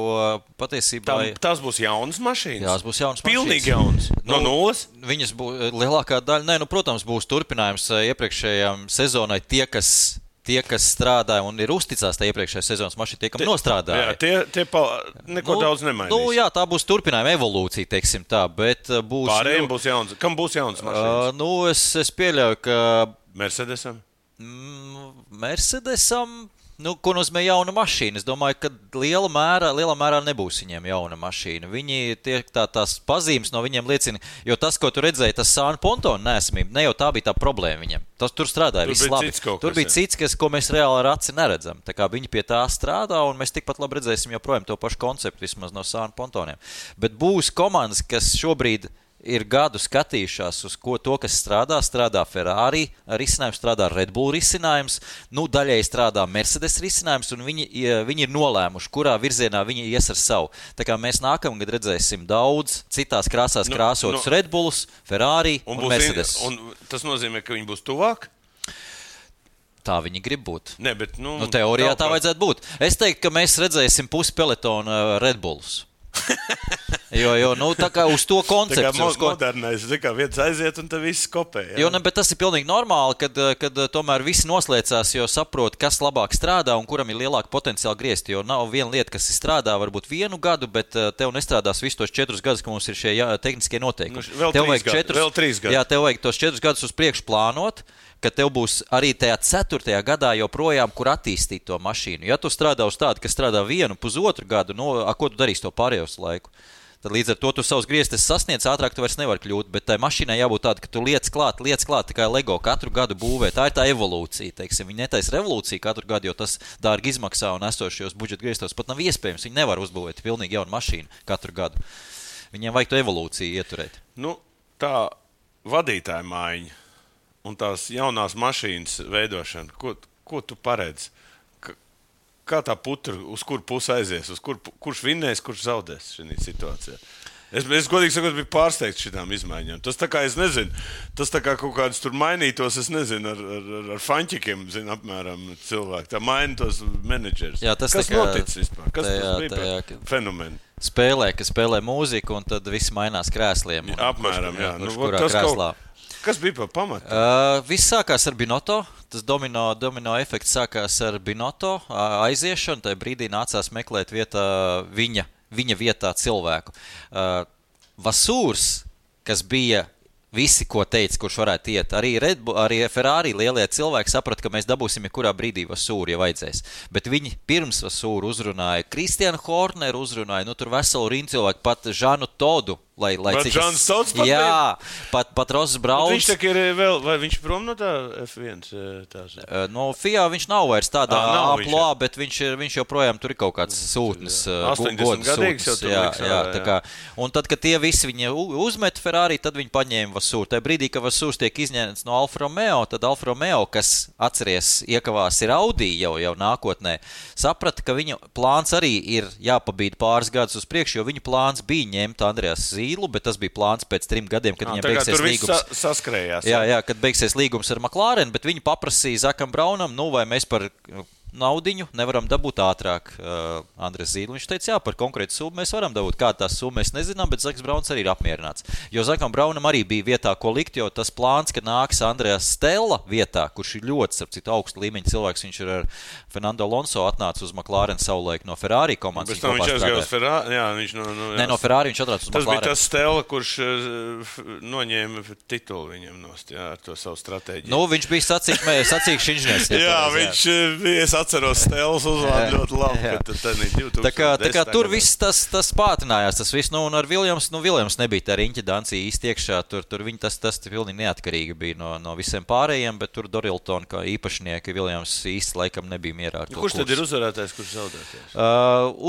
patiesībā... Tās būs jaunas mašīnas? Jā, tās būs jaunas mašīnas. Pilnīgi jaunas? No nulles? Viņas būs lielākā daļa. Protams, būs turpinājums iepriekšējām sezonai tie, kas strādāja un ir uzticās tā iepriekšējā sezonas mašīna, tie, kam nostrādāja. Jā, tie neko daudz nemainīs. Jā, tā būs turpinājuma evolūcija, teiksim tā, bet būs... Pārējiem būs jauns. Kam būs jaunas mašīnas? Es pieļauju, ka... Mercedesam? Mercedesam, ko nozīmē jauna mašīna? Es domāju, ka lielā mērā nebūs viņiem jauna mašīna. Viņi tās pazīmes no viņiem liecina, jo tas, ko tu redzēji, tas Sāna Pontona neesamība, ne jau tā bija tā problēma viņiem. Tur strādāja viss labi. Tur bija cits, ko mēs reāli ar aci neredzam. Tā kā viņi pie tā strādā, un mēs tikpat labi redzēsim joprojām to pašu konceptu, vismaz no Sāna Pontoniem. Bet būs komandas, kas šobrīd ir gadu skatījušās uz to, kas strādā Ferrari risinājums, strādā Red Bull risinājums, daļai strādā Mercedes risinājums, un viņi ir nolēmuši, kurā virzienā viņi ies ar savu. Tā kā mēs nākamgad redzēsim daudz citās krāsās krāsotus Red Bullus, Ferrari un Mercedes. Un tas nozīmē, ka viņi būs tuvāk? Tā viņi grib būt. Ne, bet, teorijā tā vajadzētu būt. Es teiktu, ka mēs redzēsim pusi pelotona Red Bullus. Jo tā kā uz to konceptu. Tā kā modernais, kā viens aiziet un tad viss kopē. Jā. Bet tas ir pilnīgi normāli, kad tomēr visi noslēdzās, jo saprot, kas labāk strādā un kuram ir lielāka potenciāla griezt. Jo nav viena lieta, kas strādā varbūt 1 gadu, bet tev nestrādās visus tos 4 gadus, ka mums ir šie tehniskie noteikumi. Vēl 3 gadi. Jā, tev vajag tos 4 gadus uz priekšu plānot, ka tev būs arī tajā 4. gadā joprojām, kur attīstīt to mašīnu. Ja tu strādā uz tādu, kas strādā 1,5 gadu, ko tu darīsi to pārējos laiku? Tad līdz ar to tu savus griestes sasniedz, ātrāk tu vairs nevar kļūt, bet tai mašīnai jābūt tāda, ka tu liec klāt, tā kā Lego katru gadu būvē. Tā ir tā evolūcija, teiksim. Viņi netaisa revolūciju katru gadu, jo tas dārgi izmaksā un esošajos budžeta griestos pat nav iespējams. Viņi nevar uzbūvēt pilnīgi jaunu mašīnu katru gadu. Viņiem vajag to evolūciju ieturēt. Tā vadītāja maiņa un tās jaunās mašīnas veidošana, ko tu paredzi? Kā tā putra, uz kur pusi aizies, kurš vinnēs, kurš zaudēs šajā situācijā? Es godīgi sakot, biju pārsteigts šitām izmaiņām. Tas tā kā, es nezinu, tas tā kā kaut kādas tur mainītos, es nezinu, ar faņķikiem, apmēram cilvēki. Tā maina tos menedžerus. Jā, kas noticis vispār? Kas tas bija par fenomenu? Kas spēlē mūziku, un tad viss mainās krēsliem. Apmēram, jā. Kurā krēslā? Kas bija par pamatu? Viss sākās ar Binotto. Tas domino efekts sākās ar Binotto aiziešanu. Tajā brīdī nācās meklēt viņa vietā cilvēku. Vasūrs, kas bija visi, ko teica, kurš varētu iet, arī Ferrari lielie cilvēki saprata, ka mēs dabūsim kurā brīdī Vasūru, ja vajadzēs. Bet viņi pirms Vasūru uzrunāja Kristiānu Horneru, tur veselu rindu cilvēku, pat Žanu Todu. Bet Žans Tods pat jā, pat Ross Brauns. Viņš tak ir vēl, vai viņš prom no tā F1? No FIA viņš nav vairs tādā aplā, bet viņš joprojām tur ir kaut kāds sūtnis. 80 gadīgs jau tur liks. Jā. Un tad, kad tie visi viņi uzmet Ferrari, tad viņi paņēma Vasūru. Tajā brīdī, kad Vasūrs tiek izņemts no Alfa Romeo, tad Alfa Romeo, kas atceries iekavās ir Audi jau nākotnē, saprata, ka viņa plāns arī ir jāpabīd pāris gadus uz priekšu, jo viņa plāns bija ņemt Andreas Zīlu, bet tas bija plāns pēc 3 gadiem, kad viņam beigsies līgums. Saskrējās. Jā, kad beigsies līgums ar McLaren, bet viņi paprasīja Zakam Braunam, vai mēs par naudiņu nevaram dabūt ātrāk Andres Zīlu. Viņš teica, jā, par konkrētu summu mēs varam dabūt. Kāda tās summa mēs nezinām, bet Zaks Brauns arī ir apmierināts. Jo Zakam Braunam arī bija vietā, ko likt, jo tas plāns, ka nāks Andreas Stella vietā, kurš ir ļoti, starp citu, augstu līmeņa cilvēks, viņš ir ar Fernando Alonso atnāca uz McLaren savulaik no Ferrari komandas. Bet viņš aizgāja uz Ferrari, jā, viņš no Ferrari viņš atnāca uz McLaren. Tas bija tas Stella, kurš noņēma titulu viņam nost, jā, ar to savu stratēģiju. Viņš bija sacīkšs inženiers. Jā, viņš bija atceros Stēles uzvārdu ļoti labi, ka tad 2010. Tā kā tur viss tas pātrinājās, tas viss, un ar Viljams nebija tā riņķa dancija īsti iekšā, tur viņi tas pilnīgi neatkarīgi bija no visiem pārējiem, bet tur Dorilton kā īpašnieki Viljams īsti laikam nebija mierā ar to kurš tad ir uzvarētājs, kurš zaudētājs?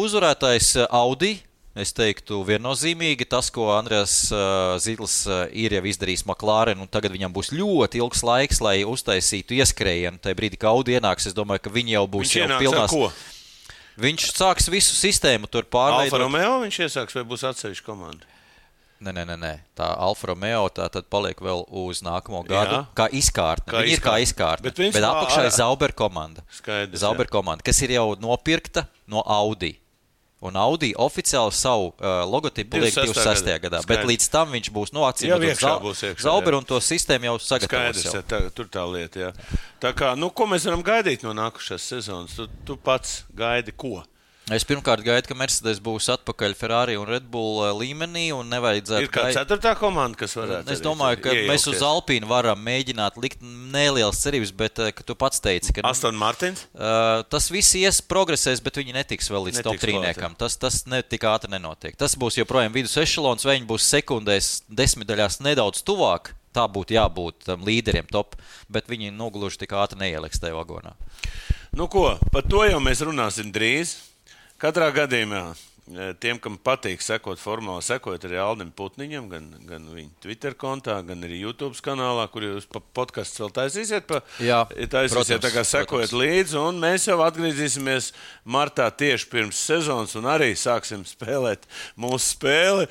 Uzvarētājs Audi. Es teiktu, viennozīmīgi tas, ko Andreas Zīls ir jau izdarījis McLaren, un tagad viņam būs ļoti ilgs laiks, lai uztaisītu ieskrējienu. Tajā brīdī, kad Audi ienāks, es domāju, ka viņi jau būs jau pilnās. Ko? Viņš sāks visu sistēmu tur pārveidot. Alfa Romeo viņš iesāks vai būs atsevišķa komanda? Nē. Tā Alfa Romeo tā tad paliek vēl uz nākamo gadu. Kā izkārtne. Viņi ir kā izkārtne. Bet apakšā ir Sauber komanda. Skaidrs, Sauber komanda, kas ir jau nopirkta no Audi. Un Audi oficiāli savu logotipu liek 26. gadā. Bet līdz tam viņš būs acīm Sauber un to sistēmu jau sagatavos. Skaidrs, tur tā lieta, jā. Tā kā, ko mēs varam gaidīt no nākušās sezonas? Tu pats gaidi ko? Es pirmkārt gaidu, ka Mercedes būs atpakaļ Ferrari un Red Bull līmenī un nevajadzētu... Ir kā 4. komanda, kas varētu... Es domāju, ka mēs uz Alpīnu varam mēģināt likt nelielas cerības, bet, ka tu pats teici, ka... Aston Martins? Tas viss progresēs, bet viņi netiks vēl līdz top 3-niekam. Tas tik ātri nenotiek. Tas būs joprojām vidus ešelons, vai viņi būs sekundēs 10 daļās nedaudz tuvāk. Tā būtu jābūt līderiem top, bet viņi nogluži tik ātri neieliks tajā vagonā. Par to jau mēs runāsim drīz. Katrā gadījumā tiem, kam patīk sekot formāli, sekot arī Aldim Putniņam, gan viņa Twitter kontā, gan arī YouTube kanālā, kur jūs podcasts vēl taisīsiet. Taisīsiet, tā kā sekojat līdzi, un mēs jau atgriezīsimies martā tieši pirms sezonas, un arī sāksim spēlēt mūsu spēli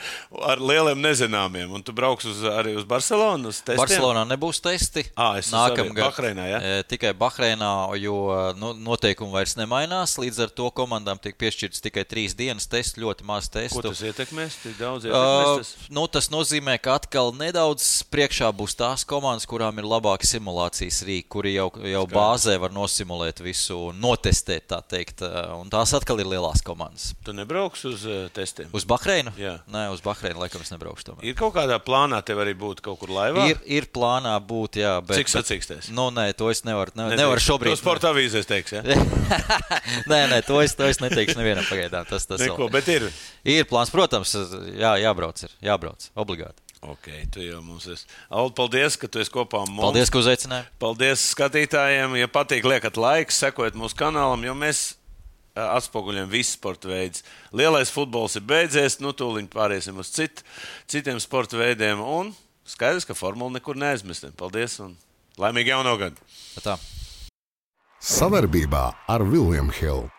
ar lieliem nezināmiem. Un tu brauks arī uz Barcelonu, uz testiem? Barcelonā nebūs testi. Nākamgad. Bahreinā, ja? Tikai Bahreinā, jo noteikumi vairs nemainās, līdz ar to komandām tiek piešķirts tikai 3 dienas tests. Ļoti maz testu. Ko tas ietekmēs? Tik daudz ietekmēs tas? Tas nozīmē, ka atkal nedaudz priekšā būs tās komandas, kurām ir labāki simulācijas rīki, kuri jau bāzē var nosimulēt visu un notestēt, tā teikt. Un tās atkal ir lielās komandas. Tu nebrauks uz testiem? Uz Bahreinu? Jā. Nē, uz Bahreinu laikam es nebraukšu tomēr. Ir kaut kādā plānā tev arī būt kaut kur laivā? Ir plānā būt, jā. Bet, cik sacīkstēs? Nē, to es nevaru šobrīd. To sporta avīzēs teiks, ja? Nē, to es neteikšu nevienam pagaidām. Tas neko, bet ir. Ir plāns, protams, jābrauc, obligāti. Ok, tu jau mums esi. Aldi, paldies, ka tu esi kopā ar mums. Paldies, ka uzaicināji. Paldies skatītājiem. Ja patīk, liekat laiks, sekojiet mūsu kanālam, jo mēs atspoguļojam visu sporta veidus. Lielais futbols ir beidzies, tūliņ pāriesim uz citiem sporta veidiem, un skaidrs, ka formula nekur neaizmestam. Paldies un laimīgi jauno gadu. Tā. Savarbībā ar William Hill.